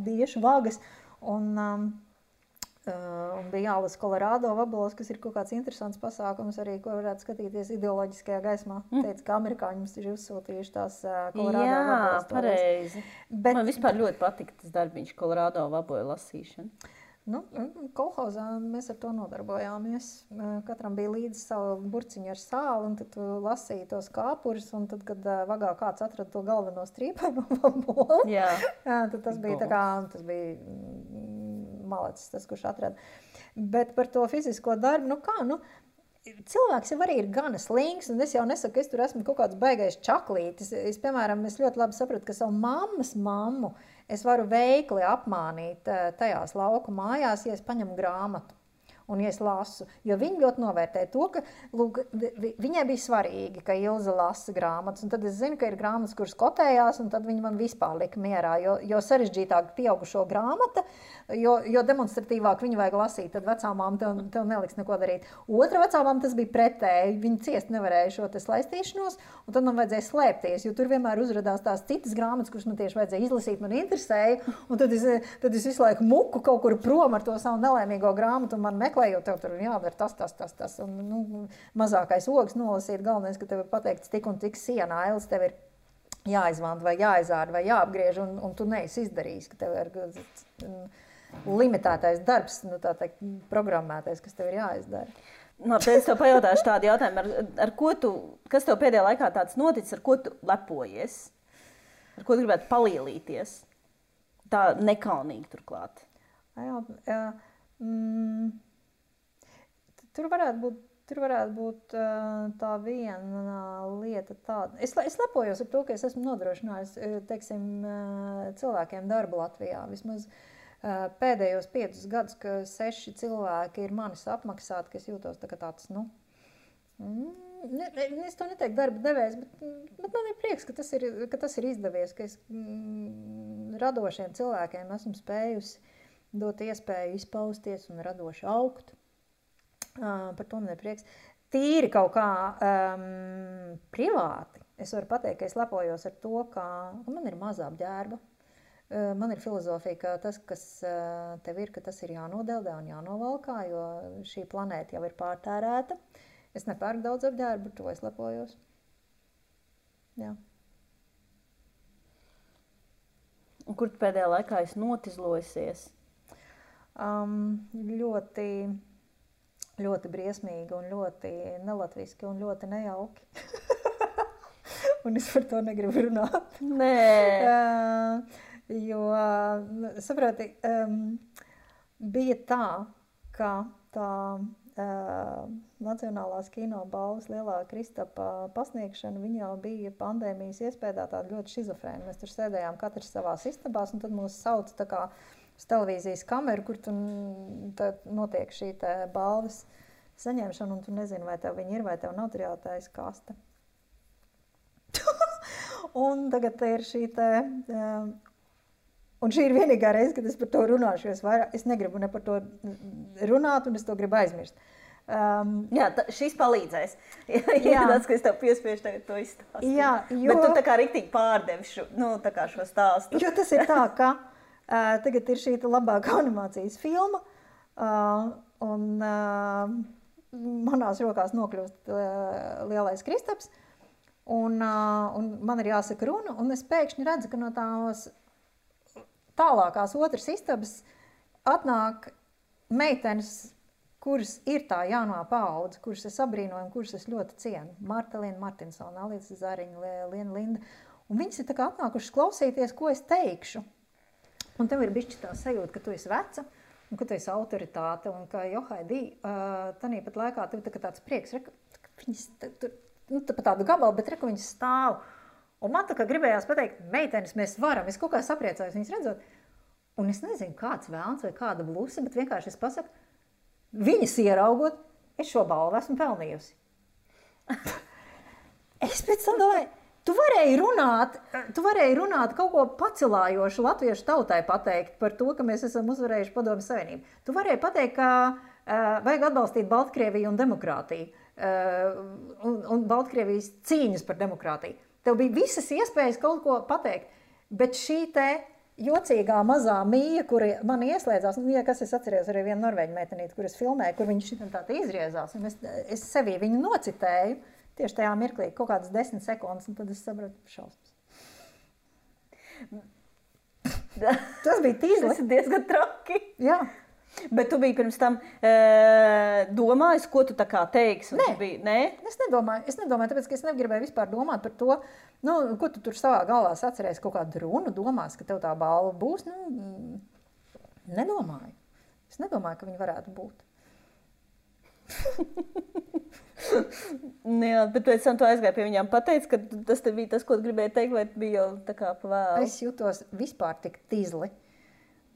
biešu vagas, un bija jālasa Kolorādo vaboles, kas ir kaut kāds interesants pasākums arī, ko varētu skatīties ideoloģiskajā gaismā. Teica, ka amerikāņi mums ir uzsūtījuši tās Kolorādo vaboles. Jā, pareizi. Man vispār ļoti patika tas darbiņš Kolorādo vaboju lasīšana. Kolhozā mēs ar to nodarbojāmies. Katram bija līdzi savu burciņu ar sāli, un tad tu lasīji tos kāpurus, un tad, kad vagā kāds atrada to galveno strīpaino vaboli, tad tas bija tā kā, tas bija malacis, tas, kurš atrada. Bet par to fizisko darbu, cilvēks jau arī ir gana slings, un es jau nesaku, ka es tur esmu kaut kāds baigais čaklītis. Piemēram, es ļoti labi sapratu, ka savu mammas mammu es varu veikli apmānīt tajās lauku mājās, ja es paņemu grāmatu un ja es lasu. Jo viņi ļoti novērtē to, ka viņai bija svarīgi, ka Ilze lasa grāmatas. Un tad es zinu, ka ir grāmatas, kuras kotējās, un tad viņi man vispār lika mierā. Jo sarežģītāk pieaugušo grāmata, jo demonstratīvāk viņu vajag lasīt, tad vecāmām tev neliks neko darīt. Otra vecāmām tas bija pretēji. Viņi ciest nevarēja šo te slaistīšanos, un tad man vajadzēja slēpties, jo tur vienmēr uzradās tās citas grāmatas, kuras man tieši vajadzēja izlasīt, man interesēja. Un tad es visu laiku muku kaut kur prom ar to savu nelaimīgo grāmatu, un man meklējot, tev tur jādara tas. Un, mazākais ogs nolasīt, galvenais, ka tev ir pateikts tik un tik sienā, ailes tev ir jāizvanta vai jāizāra vai jāapgriež, un tu neesi izdarījis, ka tev ir limitētais darbs, tā teikt, programmētais, kas tev ir jāizdara. Tad es tev pajautāšu tādu jautājumu, kas tev pēdējā laikā tāds noticis, ar ko tu lepojies? Ar ko tu gribētu palielīties? Tā nekaunīgi turklāt. Tur varētu būt tā viena lieta tāda. Es lepojos ar to, ka es esmu nodrošinājis, teiksim, cilvēkiem darbu Latvijā. Vismaz pēdējos 5 gadus, ka 6 cilvēki ir manis apmaksāti, ka es jūtos tāds, es to neteiktu darba devējs, bet man ir prieks, ka tas ir izdevies, ka es radošiem cilvēkiem esmu spējusi dot iespēju izpausties un radoši augt. Par to man ir prieks. Tīri kaut kā privāti. Es varu pateikt, ka es lepojos ar to, ka man ir mazā apģērba. Man ir filozofija, ka tas, kas tev ir, ka tas ir jānodeldē un jānovalkā, jo šī planēta jau ir pārtērēta. Es nepērku daudz apģērbu, to es lepojos. Jā. Un kur tu pēdējā laikā esi notizlojusies? Ļoti briesmīgi un ļoti nelatviski un ļoti nejauki. Un es par to negribu runāt. Nē. Jo, saproti, bija tā, ka tā Nacionālās kino balvas lielā Kristapa pasniegšana, viņa jau bija pandēmijas iespējā tāda ļoti šizofrēna. Mēs tur sēdējām katrs savās istabās, un tad mūs sauca tā kā uz televīzijas kameru, kur tu notiek šī te balvas saņemšana, un tu nezini, vai tev viņi ir, vai tev nav, tur jātaisa kaste. Un tagad ir šī te... Un šī ir vienīgā reize, kad es par to runāšu, jo es negribu ne par to runāt, un es to gribu aizmirst. Jā, šis palīdzēs. Jā, tas, ka es tev piespiešu tagad to izstāstīt. Jā, jo... Bet tu tā kā riktīgi pārdevi šo stāstu. Jo tas ir tā, ka tagad ir šī labākā animācijas filma, un manās rokās nokļūst lielais Kristaps, un man ir jāsaka runa, un es pēkšņi redzu, ka no tās tālākās otras istabas atnāk meitenes, kuras ir tā jaunā paudze, kuras es abrīnoju, kuras es ļoti cienu. Marta Liena Martinsona, Alīsa Zariņa, Liena Linda. Un viņas ir tā kā atnākušas klausīties, ko es teikšu. Un tev ir bišķi tā sajūta, ka tu esi veca, un ka tu esi autoritāte, un ka Johaidī, tanīpat laikā tev tāds prieks, viņas pa tādu gabalu, bet reku viņas stāv. Un man tā kā gribējās pateikt, meitenes, mēs varam, es kaut kā sapriecājos viņas redzot. Un es nezinu, kāds vēlns vai kāda blusa, bet vienkārši es pasaku, viņas ieraugot, es šo balvu esmu pelnījusi. Es pēc tam domāju, tu varēji runāt kaut ko pacelājošu latviešu tautai pateikt par to, ka mēs esam uzvarējuši Padomju Savienību. Tu varēji pateikt, ka vajag atbalstīt Baltkrieviju un demokrātiju, un Baltkrievijas cīņas par demokrātiju. Tev bija visas iespējas kaut ko pateikt, bet šī te jocīgā mazā mīja, kura man ieslēdzās, ja kas es atceros arī vienu norvēģu meitenīti, kur es filmēju, kur viņa šitam tā izriezās, un es sevī viņu nocitēju, tieši tajā mirklī, kaut kādas 10 sekundes, un tad es sapratu šausmas. Tas bija tīzli. Tas ir diezgan traki. Jā. Bet tu biji pirms tam domājis, ko tu tā kā teiksi? Nē? Es nedomāju, tāpēc, ka es negribēju vispār domāt par to, ko tu tur savā galvā atceries, kaut kādu runu domās, ka tev tā balva būs. Nedomāju. Es nedomāju, ka viņi varētu būt. Jā, bet pēc tam tu aizgāji pie viņām pateici, ka tas te bija tas, ko tu gribēji teikt, vai bija jau tā kā pavēlu? Es jūtos vispār tik tīzli.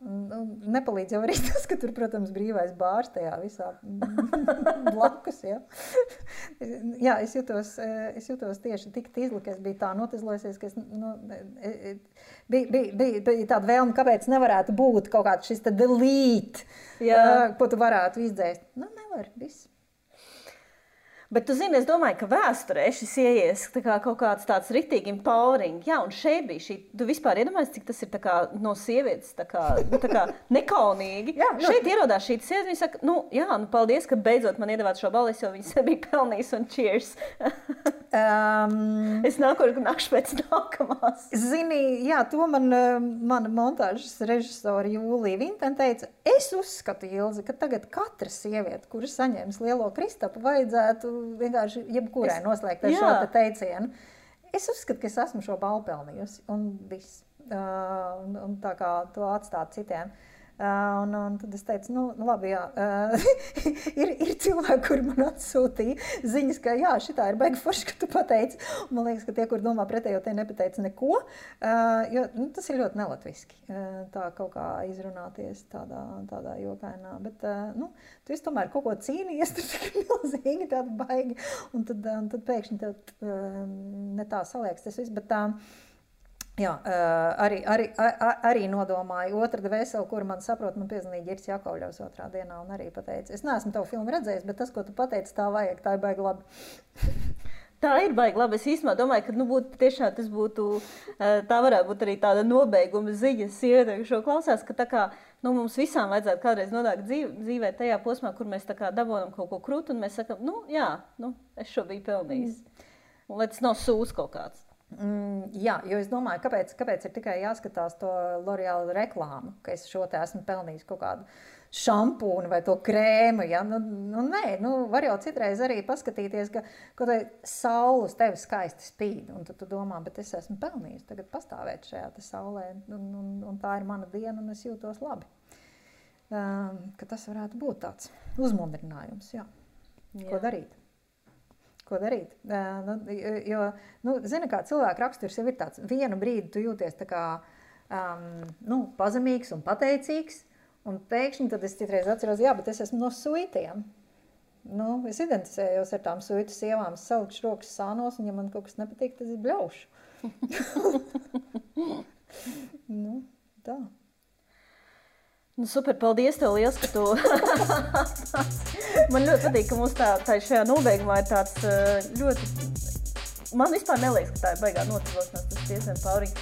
Nepalīdz jau arī tas, ka tur, protams, brīvais bārs tajā visā blakus, ja. Jā, es jūtos tieši tik tīzli, ka es biju tā notizlojusies, ka bija tāda vēlme, kāpēc nevarētu būt kaut kāds šis te delete, ko tu varētu izdzēst. Nevar, viss. Bet tu zini, es domāju, ka vēsturē šis ieies kaut kāds tāds ritīgi empowering. Jā, un šeit bija šī, tu vispār iedomājies, cik tas ir no sievietes nekaunīgi. Jā, šeit ierodās šī sieviete, viņa saka, paldies, ka beidzot man iedevāt šo balvu, jo viņa sev bija pelnījis un cheers. Es nākšu pēc nākamās. Zini, jā, to mana montāžas režisora Jūlija Vinten teica, es uzskatu, Ilzi, ka tagad katra sieviete, kura saņems lielo Kristapu, vajadzētu vienkārši jebkurai noslēgt ar šo te teicienu. Es uzskatu, ka es esmu šo balvu pelnījusi, un viss. Un tā kā to atstāt citiem. Un tad es teicu, labi, jā. ir cilvēki, kuri man atsūtīja ziņas, ka jā, šitā ir baigi forši, ka tu pateici. Un man liekas, ka tie, kur domā pretējo, tie nepateica neko, jo tas ir ļoti nelatviski, tā kaut kā izrunāties tādā jokainā. Bet, tu esi tomēr kaut ko cīnījies, tur tik milzīgi tāda baigi, un tad pēkšņi tev ne tā saliekas tas viss, bet jā, arī nodomāju otra dvēseli, kuru man saprot, man piezvanīja Ģirs Jakovļevs otrā dienā un arī pateica, es neesmu tavu filmu redzējis, bet tas, ko tu pateici, tā vajag, tā ir baigi labi. Tā ir baigi labi. Es īstenībā domāju, ka tiešām tas būtu, tā varētu būt arī tāda nobeiguma ziņa sievietei, šo klausās, ka tā kā mums visām vajadzētu kādreiz nonākt dzīvē tajā posmā, kur mēs tā kā dabonam kaut ko krūtu un mēs sakam, es šo biju pelnījis. Un lai tas nav sūs kaut kāds. Jā, jo es domāju, kāpēc ir tikai jāskatās to L'Oreal reklāmu, ka es šo te esmu pelnījis kaut kādu šampūnu vai to krēmu, ja? Nē, var jau citreiz arī paskatīties, ka kaut vai saule uz tevi skaisti spīd, un tad tu domā, bet es esmu pelnījis tagad pastāvēt šajā te saulē, un tā ir mana diena, un es jūtos labi. ka tas varētu būt tāds uzmundrinājums, jā. Ko darīt? Ko darīt? Zini, kā cilvēka raksturs jau ir tāds, vienu brīdi tu jūties tā kā pazemīgs un pateicīgs, un pēkšņi tad es citreiz atceros, jā, bet es esmu no suitiem. Es identificējos ar tām suitu sievām, es salikšu rokas sānos, un ja man kaut kas nepatīk, tad es bļaušu. Tā. Super, paldies tev liels, ka tu... Man ļoti patīk, ka mums tā šajā nobeigumā ir tāds ļoti... Man vispār neliekas, ka tā ir baigā noticēšanās, tas tiesiem Pauriņa.